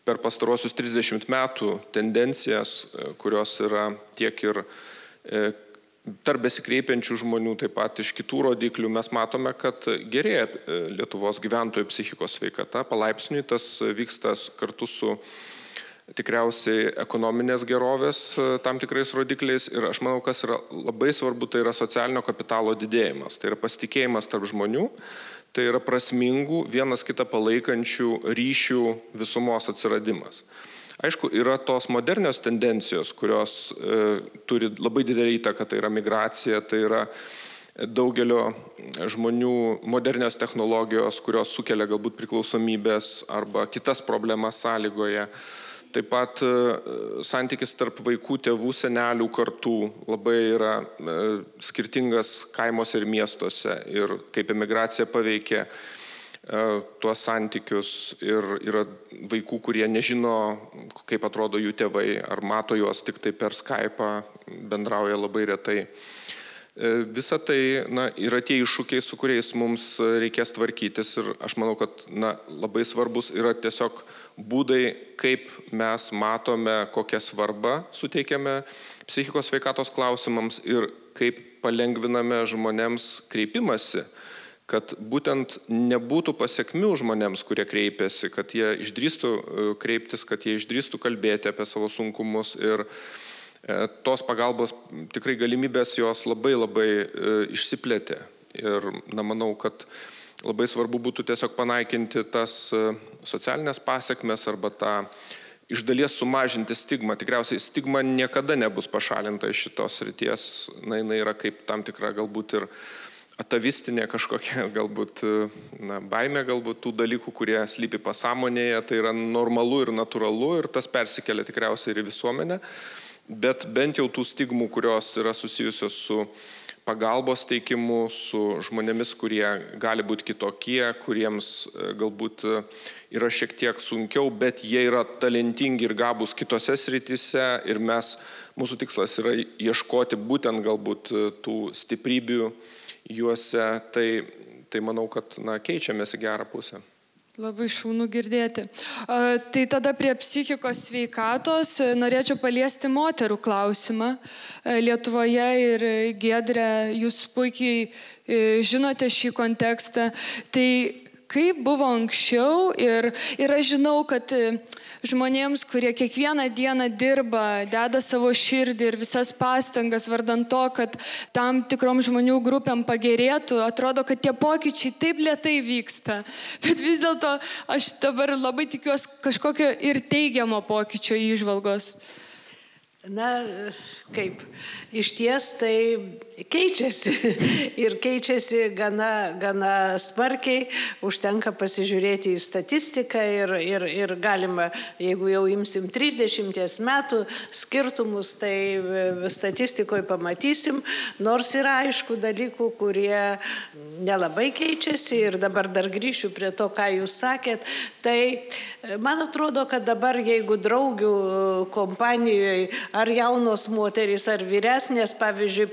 per pastarosius 30 metų tendencijas, kurios yra tiek ir tarp besikreipiančių žmonių, taip pat iš kitų rodiklių, mes matome, kad gerėja Lietuvos gyventojų psichikos sveikata. Palaipsniui tas vyksta kartu su tikriausiai ekonominės gerovės tam tikrais rodikliais. Ir aš manau, kas yra labai svarbu, tai yra socialinio kapitalo didėjimas. Tai yra pasitikėjimas tarp žmonių. Tai yra prasmingų, vienas kitą palaikančių ryšių visumos atsiradimas. Aišku, yra tos modernios tendencijos, kurios turi labai didelį įtaką, tai yra migracija, tai yra daugelio žmonių modernios technologijos, kurios sukelia galbūt priklausomybės arba kitas problemas sąlygoje. Taip pat santykis tarp vaikų, tėvų, senelių kartų labai yra skirtingas kaimuose ir miestuose ir kaip emigracija paveikia tuos santykius ir yra vaikų, kurie nežino, kaip atrodo jų tėvai, ar mato juos tik tai per Skype'ą, bendrauja labai retai. Visa tai yra tie iššūkiai, su kuriais mums reikės tvarkytis ir aš manau, kad labai svarbus yra tiesiog būdai, kaip mes matome, kokią svarbą suteikiame psichikos sveikatos klausimams ir kaip palengviname žmonėms kreipimąsi, kad būtent nebūtų pasekmių žmonėms, kurie kreipiasi, kad jie išdrįstų kreiptis, kad jie išdrįstų kalbėti apie savo sunkumus ir tos pagalbos tikrai galimybės jos labai išsiplėtė. Ir manau, kad labai svarbu būtų tiesiog panaikinti tas socialinės pasekmes arba tą iš dalies sumažinti stigmą. Tikriausiai stigma niekada nebus pašalinta iš šitos srities. Jinai yra kaip tam tikra galbūt ir atavistinė kažkokia galbūt baimė galbūt tų dalykų, kurie slypi pasąmonėje. Tai yra normalu ir natūralu ir tas persikelia tikriausiai ir į visuomenę. Bet bent jau tų stigmų, kurios yra susijusios su pagalbos teikimu, su žmonėmis, kurie gali būti kitokie, kuriems galbūt yra šiek tiek sunkiau, bet jie yra talentingi ir gabūs kitose srityse ir mūsų tikslas yra ieškoti būtent galbūt tų stiprybių juose, tai manau, kad keičiamės į gerą pusę. Labai šaunu girdėti. Tai tada prie psichikos sveikatos norėčiau paliesti moterų klausimą. Lietuvoje ir Giedre, jūs puikiai žinote šį kontekstą. Tai kaip buvo anksčiau ir aš žinau, kad žmonėms, kurie kiekvieną dieną dirba, deda savo širdį ir visas pastangas vardan to, kad tam tikrom žmonių grupėm pagerėtų, atrodo, kad tie pokyčiai taip lėtai vyksta. Bet vis dėlto aš dabar labai tikiuosi kažkokio ir teigiamo pokyčio įžvalgos. Kaip, iš ties tai keičiasi ir keičiasi gana smarkiai, užtenka pasižiūrėti į statistiką ir galima, jeigu jau imsim 30 metų skirtumus, tai statistikoje pamatysim, nors yra aišku dalykų, kurie nelabai keičiasi ir dabar dar grįšiu prie to, ką jūs sakėt, tai man atrodo, kad dabar jeigu draugių kompanijoje ar jaunos moterys, ar vyresnės, pavyzdžiui,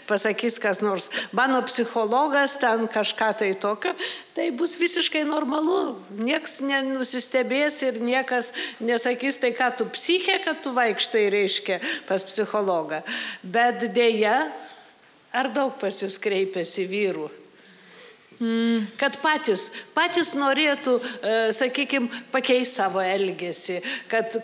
pasakys kas nors, mano psichologas ten kažką tai tokio, tai bus visiškai normalu. Niekas nenusistebės ir niekas nesakys, tai ką tu psichė, kad tu vaikštai, reiškia, pas psichologą. Bet dėja, ar daug pas jūs kreipiasi vyrų? Kad patys norėtų, sakykime, pakeisti savo elgesį, kad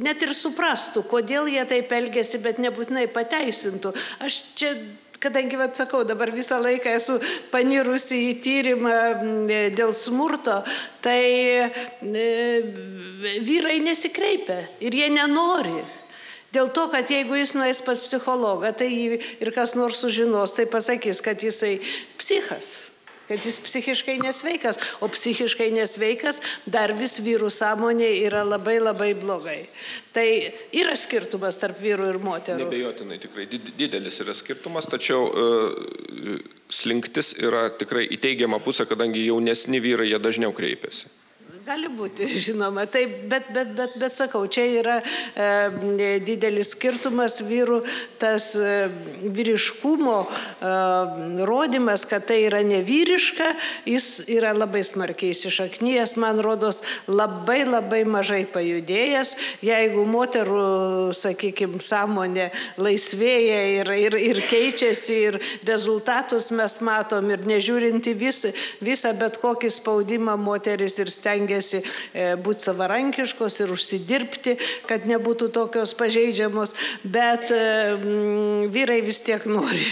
net ir suprastų, kodėl jie taip elgesi, bet nebūtinai pateisintų. Aš čia, kadangi, sakau, dabar visą laiką esu panirusi į tyrimą dėl smurto, tai vyrai nesikreipia ir jie nenori. Dėl to, kad jeigu jis nueis pas psichologą, tai ir kas nors sužinos, tai pasakys, kad jisai psichas, kad jis psichiškai nesveikas, o psichiškai nesveikas dar vis vyrų sąmonė yra labai blogai. Tai yra skirtumas tarp vyrų ir moterų. Nebejotinai, tikrai didelis yra skirtumas, tačiau slinktis yra tikrai į teigiamą pusę, kadangi jaunesni vyrai jie dažniau kreipiasi. Gali būti, žinoma, taip, bet sakau, čia yra didelis skirtumas vyrų, tas vyriškumo rodymas, kad tai yra nevyriška, jis yra labai smarkiai įsišaknyjęs, man rodos, labai mažai pajudėjęs. Jeigu moterų, sakykime, sąmonė laisvėja ir keičiasi ir rezultatus mes matom ir nežiūrinti visą bet kokį spaudimą moteris ir stengiasi stengiasi būti savarankiškos ir užsidirbti, kad nebūtų tokios pažeidžiamos, bet vyrai vis tiek nori,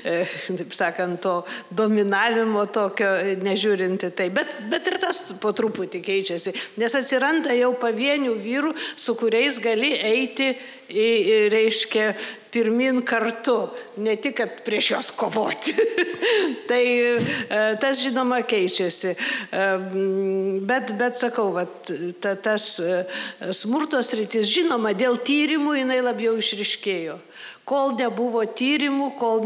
taip sakant, to dominavimo tokio, nežiūrinti tai. Bet ir tas po truputį keičiasi, nes atsiranda jau pavienių vyrų, su kuriais gali eiti, reiškia, pirmin kartu, ne tik, kad prieš juos kovoti. Tai tas, žinoma, keičiasi. Bet sakau, tas smurto sritis, žinoma, dėl tyrimų jinai labiau išryškėjo. Kol nebuvo tyrimų, kol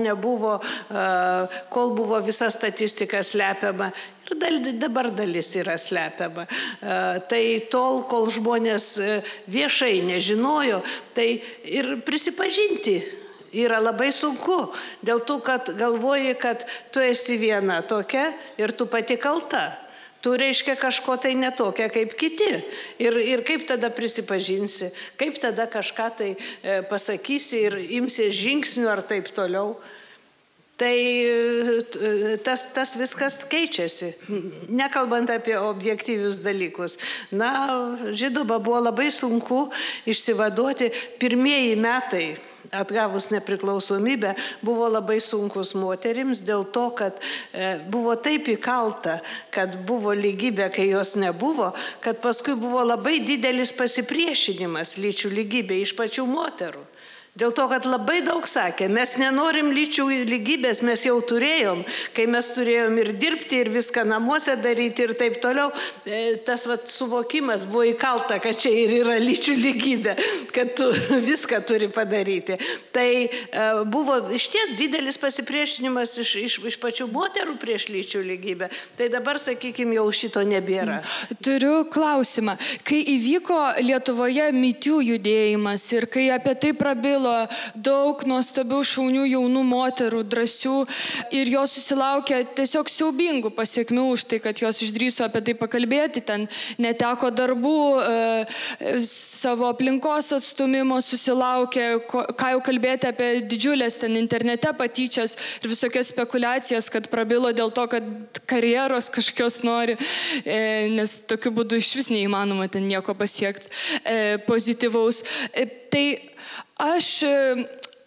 buvo visa statistika slepiama, ir dabar dalis yra slepiama. Tai tol, kol žmonės viešai nežinojo, tai ir prisipažinti yra labai sunku. Dėl to, kad galvoji, kad tu esi viena tokia ir tu pati kalta. Tu reiškia kažko tai netokia kaip kiti. Ir kaip tada prisipažinsi, kaip tada kažką tai pasakysi ir imsi žingsnių ar taip toliau. Tai tas viskas keičiasi, nekalbant apie objektyvius dalykus. Na, žinoma, buvo labai sunku išsivaduoti. Pirmieji metai atgavus nepriklausomybę buvo labai sunkus moterims dėl to, kad buvo taip įkalta, kad buvo lygybė, kai jos nebuvo, kad paskui buvo labai didelis pasipriešinimas lyčių lygybė iš pačių moterų. Dėl to, kad labai daug sakė, mes nenorim lyčių lygybės, mes jau turėjom, kai mes turėjom ir dirbti, ir viską namuose daryti ir taip toliau, tas suvokimas buvo įkalta, kad čia ir yra lyčių lygybė, kad tu viską turi padaryti. Tai buvo išties didelis pasipriešinimas iš pačių moterų prieš lyčių lygybę. Tai dabar, sakykime, jau šito nebėra. Turiu klausimą. Kai įvyko Lietuvoje Me Too judėjimas ir kai apie tai prabilo daug nuostabių šaunių jaunų moterų, drąsių, ir jos susilaukė tiesiog siaubingų pasiekmių už tai, kad jos išdrįso apie tai pakalbėti, ten neteko darbų, savo aplinkos atstumimo susilaukė, ką jau kalbėti apie didžiulės ten internete patyčias ir visokias spekulacijas, kad prabilo dėl to, kad karjeros kažkokios nori, nes tokiu būdu iš vis neįmanoma ten nieko pasiekti pozityvaus. Tai aš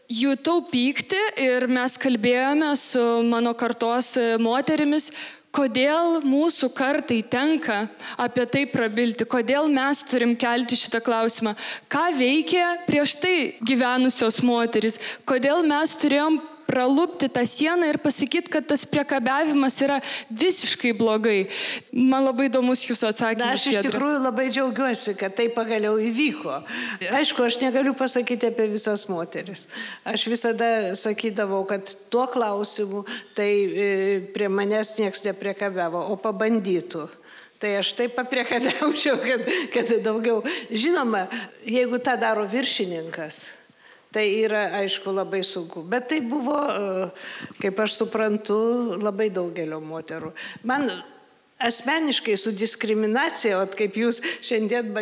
jutau pyktį ir mes kalbėjome su mano kartos moterimis, kodėl mūsų kartai tenka apie tai prabilti, kodėl mes turim kelti šitą klausimą, ką veikė prieš tai gyvenusios moterys, kodėl mes turėjom pralupti tą sieną ir pasakyti, kad tas priekabiavimas yra visiškai blogai. Man labai įdomus jūsų atsakymas. Aš iš tikrųjų labai džiaugiuosi, kad tai pagaliau įvyko. Aišku, aš negaliu pasakyti apie visas moteris. Aš visada sakydavau, kad tuo klausimu tai prie manęs nieks nepriekabiavo, o pabandytų. Tai aš taip papriekabiaučiau, kad daugiau. Žinoma, jeigu tą daro viršininkas, tai yra, aišku, labai sunku. Bet tai buvo, kaip aš suprantu, labai daugelio moterų. Man asmeniškai su diskriminacija, kaip jūs šiandien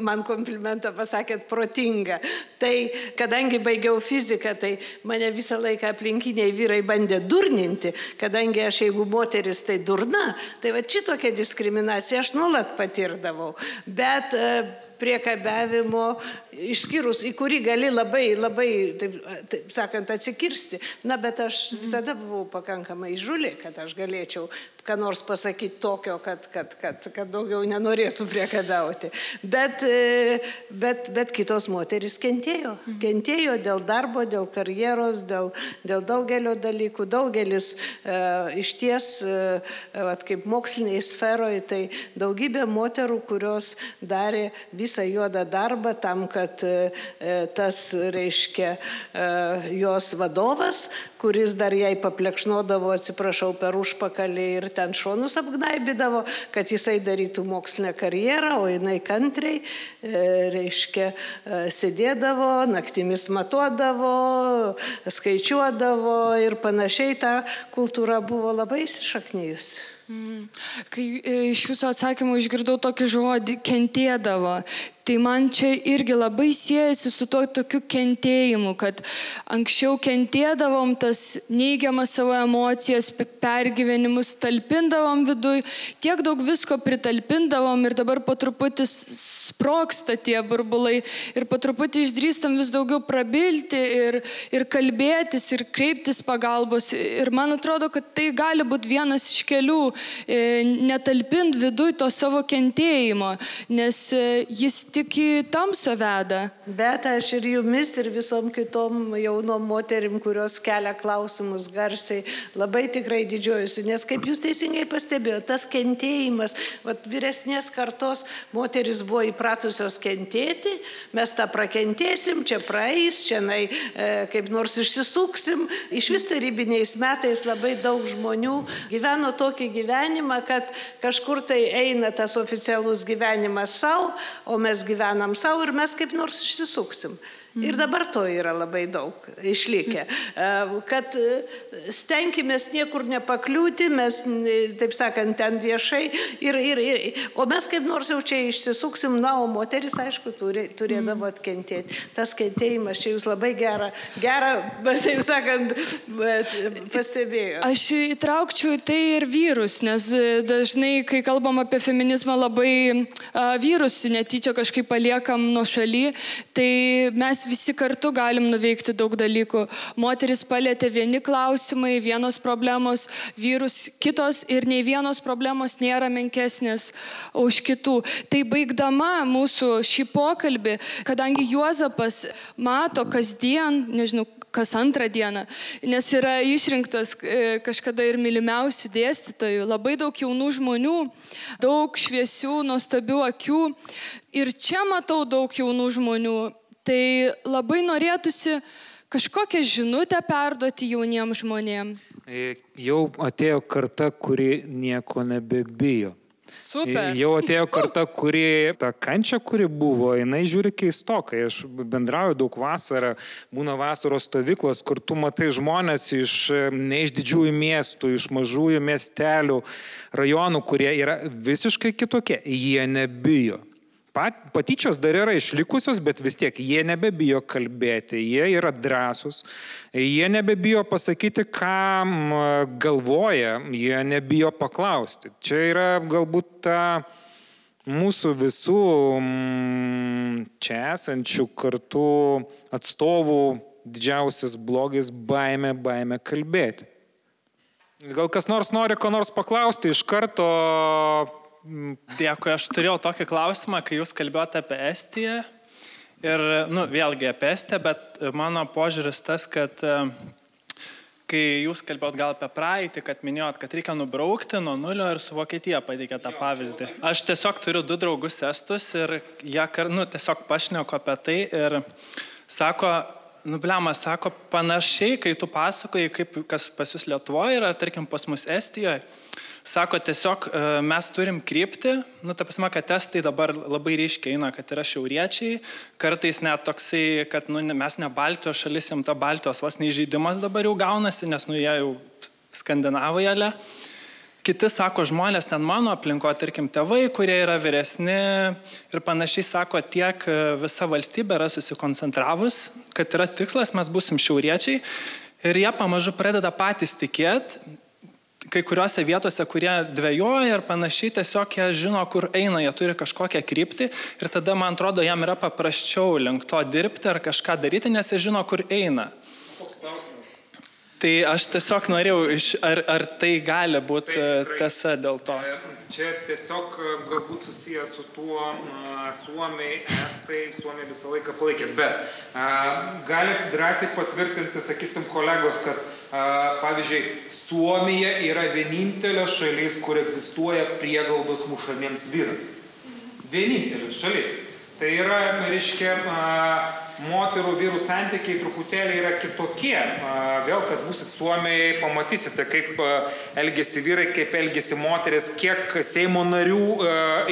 man komplimentą pasakėt, protinga. Tai kadangi baigiau fiziką, tai mane visą laiką aplinkiniai vyrai bandė durninti, kadangi aš, jeigu moteris, tai durna, tai va šitokia diskriminacija aš nuolat patirdavau. Bet priekabiavimo, išskyrus, į kurį gali labai, taip sakant, atsikirsti. Na, bet aš visada buvau pakankamai įžūli, kad aš galėčiau ką nors pasakyti tokio, kad daugiau nenorėtų priekabiauti. Bet kitos moterys kentėjo. Kentėjo dėl darbo, dėl karjeros, dėl daugelio dalykų. Daugelis išties, kaip moksliniai sferoje, tai daugybė moterų, kurios darė visą juodą darbą tam, kad tas, reiškia, jos vadovas, kuris dar jai paplekšnodavo, atsiprašau, per užpakalį ir ten šonus apgnaibydavo, kad jisai darytų mokslinę karjerą, o jinai kantriai, reiškia, sėdėdavo, naktimis matuodavo, skaičiuodavo ir panašiai. Ta kultūra buvo labai įsišaknijusi. Kai iš jūsų atsakymų išgirdau tokį žodį, kentėdavo, tai man čia irgi labai siejasi su tokiu kentėjimu, kad anksčiau kentėdavom, tas neigiamas savo emocijas, pergyvenimus talpindavom viduj, tiek daug visko pritalpindavom ir dabar po truputį sproksta tie burbulai ir po truputį išdrįstam vis daugiau prabilti ir kalbėtis ir kreiptis pagalbos. Ir man atrodo, kad tai gali būti vienas iš kelių, netalpint viduj to savo kentėjimo, nes jis tik į tamsą veda. Bet aš ir jumis, ir visom kitom jaunom moterim, kurios kelia klausimus garsiai, labai tikrai didžiuojusi, nes kaip jūs teisingai pastebėjote, tas kentėjimas, vyresnės kartos moteris buvo įpratusios kentėti, mes tą prakentėsim, čia praeis, čia kaip nors išsisuksim. Iš vis tarybiniais metais labai daug žmonių gyveno tokį gyvenimą, kad kažkur tai eina tas oficialus gyvenimas savo, o mes gyvenam savo ir mes kaip nors išsisuksim. Ir dabar to yra labai daug išlikę, kad stenkimės niekur nepakliūti, mes, taip sakant, ten viešai, o mes kaip nors jau čia išsisuksim, o moteris, aišku, turėdavo atkentėti. Tas kentėjimas čia jūs labai gerą, taip sakant, pastebėjo. Aš įtraukčiau tai ir vyrus, nes dažnai, kai kalbam apie feminizmą, labai vyrus netyčia kažkaip paliekam nuo šaly, tai mes visi kartu galim nuveikti daug dalykų. Moteris palietė vieni klausimai, vienos problemos, vyrus kitos ir nei vienos problemos nėra menkesnės už kitų. Tai baigdama mūsų šį pokalbį, kadangi Juozapas mato kasdien, nežinau, kas antrą dieną, nes yra išrinktas kažkada ir mylimiausių dėstytojų, labai daug jaunų žmonių, daug šviesių, nuostabių akių ir čia matau daug jaunų žmonių. Tai labai norėtųsi kažkokią žinutę perduoti jauniems žmonėms. Jau atėjo karta, kuri nieko nebebijo. Super. Jau atėjo karta, kuri tą kančią, kuri buvo, jinai žiūri keistokai. Aš bendrauju daug vasarą, būna vasaros stovyklos, kur tu matai žmonės ne iš didžiųjų miestų, iš mažųjų miestelių, rajonų, kurie yra visiškai kitokie. Jie nebijo. Patyčios dar yra išlikusios, bet vis tiek jie nebebijo kalbėti, jie yra drąsūs, jie nebebijo pasakyti, ką galvoja, jie nebijo paklausti. Čia yra galbūt ta mūsų visų čia esančių kartų atstovų didžiausias blogis baimė kalbėti. Gal kas nors nori ko nors paklausti iš karto? Dėkui, aš turėjau tokį klausimą, kai jūs kalbėjote apie Estiją ir, vėlgi apie Estiją, bet mano požiūris tas, kad kai jūs kalbėjot gal apie praeitį, kad minėjot, kad reikia nubraukti nuo nulio ir su Vokietija pateikė tą pavyzdį. Aš tiesiog turiu 2 draugus estus ir jie tiesiog pašneku apie tai ir sako, sako panašiai, kai tu pasakoji, kaip kas pas jūs Lietuvoje yra, tarkim pas mus Estijoje, sako, tiesiog mes turim krypti, ta prasme, kad estai dabar labai ryškiai eina, kad yra šiauriečiai, kartais net toksai, kad mes ne Baltijos šalis, jam ta Baltijos vos neįžeidimas dabar jau gaunasi, nes jie jau skandinavai ale. Kiti sako, žmonės ten mano aplinko, tarkim, tėvai, kurie yra vyresni ir panašiai sako, tiek visa valstybė yra susikoncentravus, kad yra tikslas, mes būsim šiauriečiai ir jie pamažu pradeda patys tikėti, kai kuriuose vietose, kurie dvejoja ir panašiai, tiesiog jie žino, kur eina, jie turi kažkokią kryptį ir tada, man atrodo, jam yra paprasčiau link to dirbti ar kažką daryti, nes jie žino, kur eina. Koks klausimas? Tai aš tiesiog norėjau, ar tai gali būti tiesa dėl to? Čia tiesiog galbūt susijęs su tuo Suomiai, Estai, Suomiai visą laiką palaikė, bet gali drąsiai patvirtinti, sakysim, kolegos, kad pavyzdžiui, Suomija yra vienintelė šalis, kur egzistuoja prieglaudos mušamiems vyrams. Vienintelė šalis. Tai yra, reiškia, moterų vyrų santykiai truputėlį yra kitokie. Vėl, kas būsit Suomijai, pamatysite, kaip elgesi vyrai, kaip elgesi moteris, kiek Seimo narių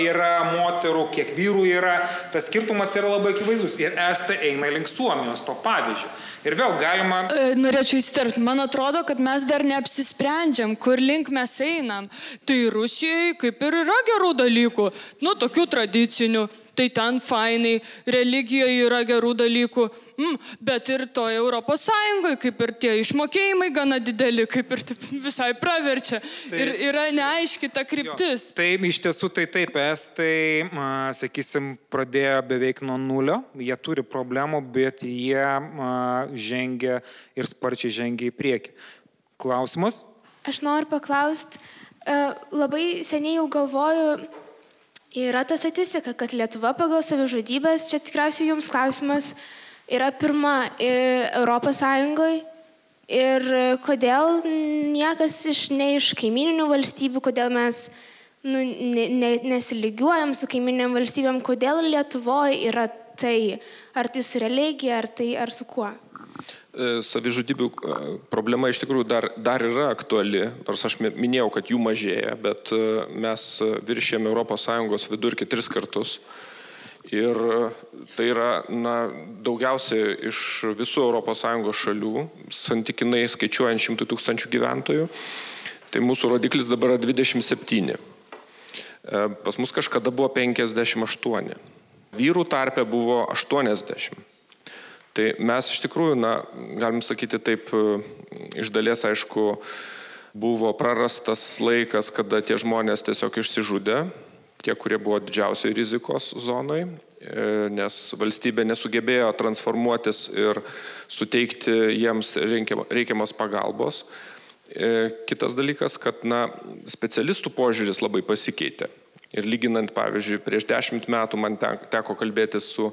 yra moterų, kiek vyrų yra. Tas skirtumas yra labai akivaizdus. Ir Estai eina link Suomijos, to pavyzdžio. Ir vėl galima... Norėčiau įsiterpti. Man atrodo, kad mes dar neapsisprendžiam, kur link mes einam. Tai Rusijai kaip ir yra gerų dalykų, tokių tradicinių. tai ten fainai, religijoje yra gerų dalykų, bet ir toje Europos Sąjungoje, kaip ir tie išmokėjimai gana dideli, kaip ir visai praverčia. Ir yra neaiški ta kryptis. Taip, iš tiesų taip, estai, sakysim, pradėjo beveik nuo nulio, jie turi problemų, bet jie žengia ir sparčiai žengia į priekį. Klausimas? Aš noriu paklausti, labai seniai jau galvoju, yra ta statistika, kad Lietuva pagal savižudybės, čia tikriausiai jums klausimas, yra pirma Europos Sąjungoje ir kodėl niekas ne iš kaimininių valstybių, kodėl mes nesilygiuojam su kaimininiam valstybėm, kodėl Lietuvoje yra tai, ar tai su religija, ar su kuo? Savižudybių problema iš tikrųjų dar yra aktuali, nors aš minėjau, kad jų mažėja, bet mes viršėjame ES vidurkį 3 kartus. Ir tai yra daugiausiai iš visų ES šalių, santykinai skaičiuojant 100 000 gyventojų. Tai mūsų rodiklis dabar yra 27. Pas mus kažkada buvo 58. Vyrų tarpe buvo 80. Tai mes iš tikrųjų, galim sakyti taip, iš dalies, aišku, buvo prarastas laikas, kada tie žmonės tiesiog išsižudė, tie, kurie buvo didžiausiai rizikos zonai, nes valstybė nesugebėjo transformuotis ir suteikti jiems reikiamos pagalbos. Kitas dalykas, kad specialistų požiūris labai pasikeitė. Ir lyginant, pavyzdžiui, prieš 10 metų man teko kalbėti su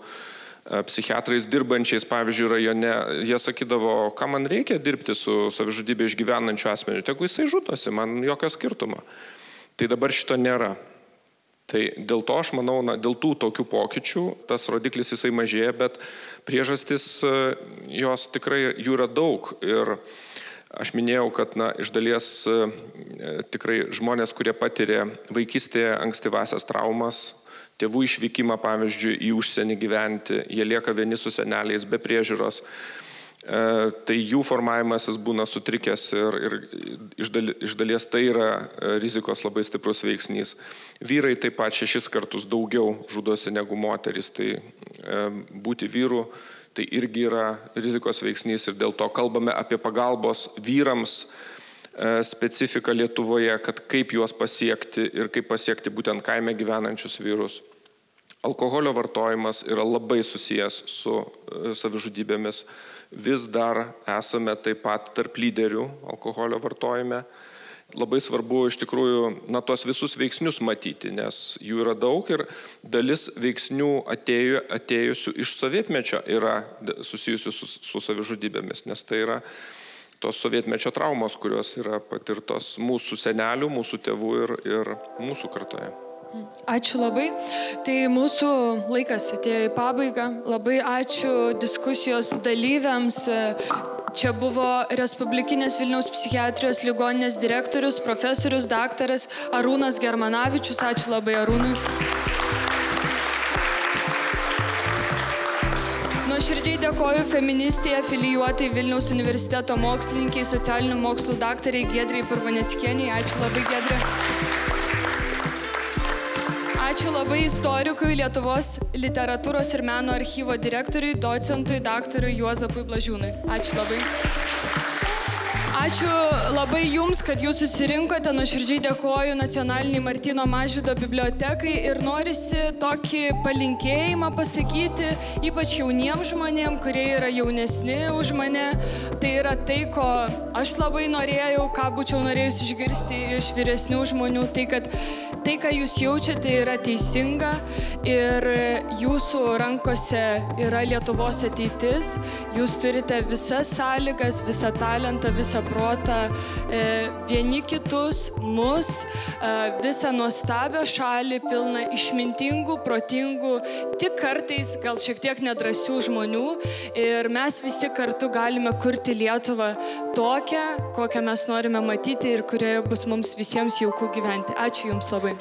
psichiatrais dirbančiais, pavyzdžiui, rajone, jie sakydavo, ką man reikia dirbti su savižudybė išgyvenančiu asmeniu, tegu jisai žudosi, man jokio skirtumo. Tai dabar šito nėra. Tai dėl to aš manau, dėl tų tokių pokyčių tas rodiklis jisai mažėja, bet priežastis jos tikrai jų yra daug. Ir aš minėjau, kad iš dalies tikrai žmonės, kurie patiria vaikystėje ankstyvasias traumas, tėvų išvykimą, pavyzdžiui, į užsienį gyventi, jie lieka vieni su seneliais be priežiūros, tai jų formavimasis būna sutrikęs ir iš dalies tai yra rizikos labai stiprus veiksnys. Vyrai taip pat 6 kartus daugiau žudosi negu moterys, tai būti vyru tai irgi yra rizikos veiksnys ir dėl to kalbame apie pagalbos vyrams specifiką Lietuvoje, kad kaip juos pasiekti ir kaip pasiekti būtent kaime gyvenančius vyrus. Alkoholio vartojimas yra labai susijęs su savižudybėmis. Vis dar esame taip pat tarp lyderių alkoholio vartojime. Labai svarbu iš tikrųjų tos visus veiksnius matyti, nes jų yra daug ir dalis veiksnių atėjusių iš sovietmečio yra susijusių su savižudybėmis, nes tai yra tos sovietmečio traumos, kurios yra patirtos mūsų senelių, mūsų tėvų ir mūsų kartoje. Ačiū labai. Tai mūsų laikas atėjo į pabaigą. Labai ačiū diskusijos dalyviams. Čia buvo Respublikinės Vilniaus psichiatrijos ligoninės direktorius, profesorius, daktaras Arūnas Germanavičius. Ačiū labai Arūnui. Nuoširdžiai dėkoju feministijai afilijuotai Vilniaus universiteto mokslininkiai, socialinių mokslų daktariai Giedrei Purvaneckienei. Ačiū labai, Giedrė. Ačiū labai istorikui, Lietuvos literatūros ir meno archyvo direktoriui, docentui, daktarui Juozapui Blažiūnui. Ačiū labai. Ačiū labai Jums, kad Jūs susirinkote. Nuoširdžiai dėkoju Nacionaliniai Martyno Mažvydo bibliotekai ir norisi tokį palinkėjimą pasakyti, ypač jauniems žmonėms, kurie yra jaunesni už mane. Tai yra tai, ko aš labai norėjau, ką būčiau norėjus išgirsti iš vyresnių žmonių, tai kad tai, ką Jūs jaučiate, yra teisinga ir Jūsų rankose yra Lietuvos ateitis. Jūs turite visas sąlygas, visą talentą, visą protą, vieni kitus, mus, visą nuostabią šalį, pilną išmintingų, protingų, tik kartais gal šiek tiek nedrąsių žmonių. Ir mes visi kartu galime kurti Lietuvą tokią, kokią mes norime matyti ir kurioje bus mums visiems jauku gyventi. Ačiū Jums labai.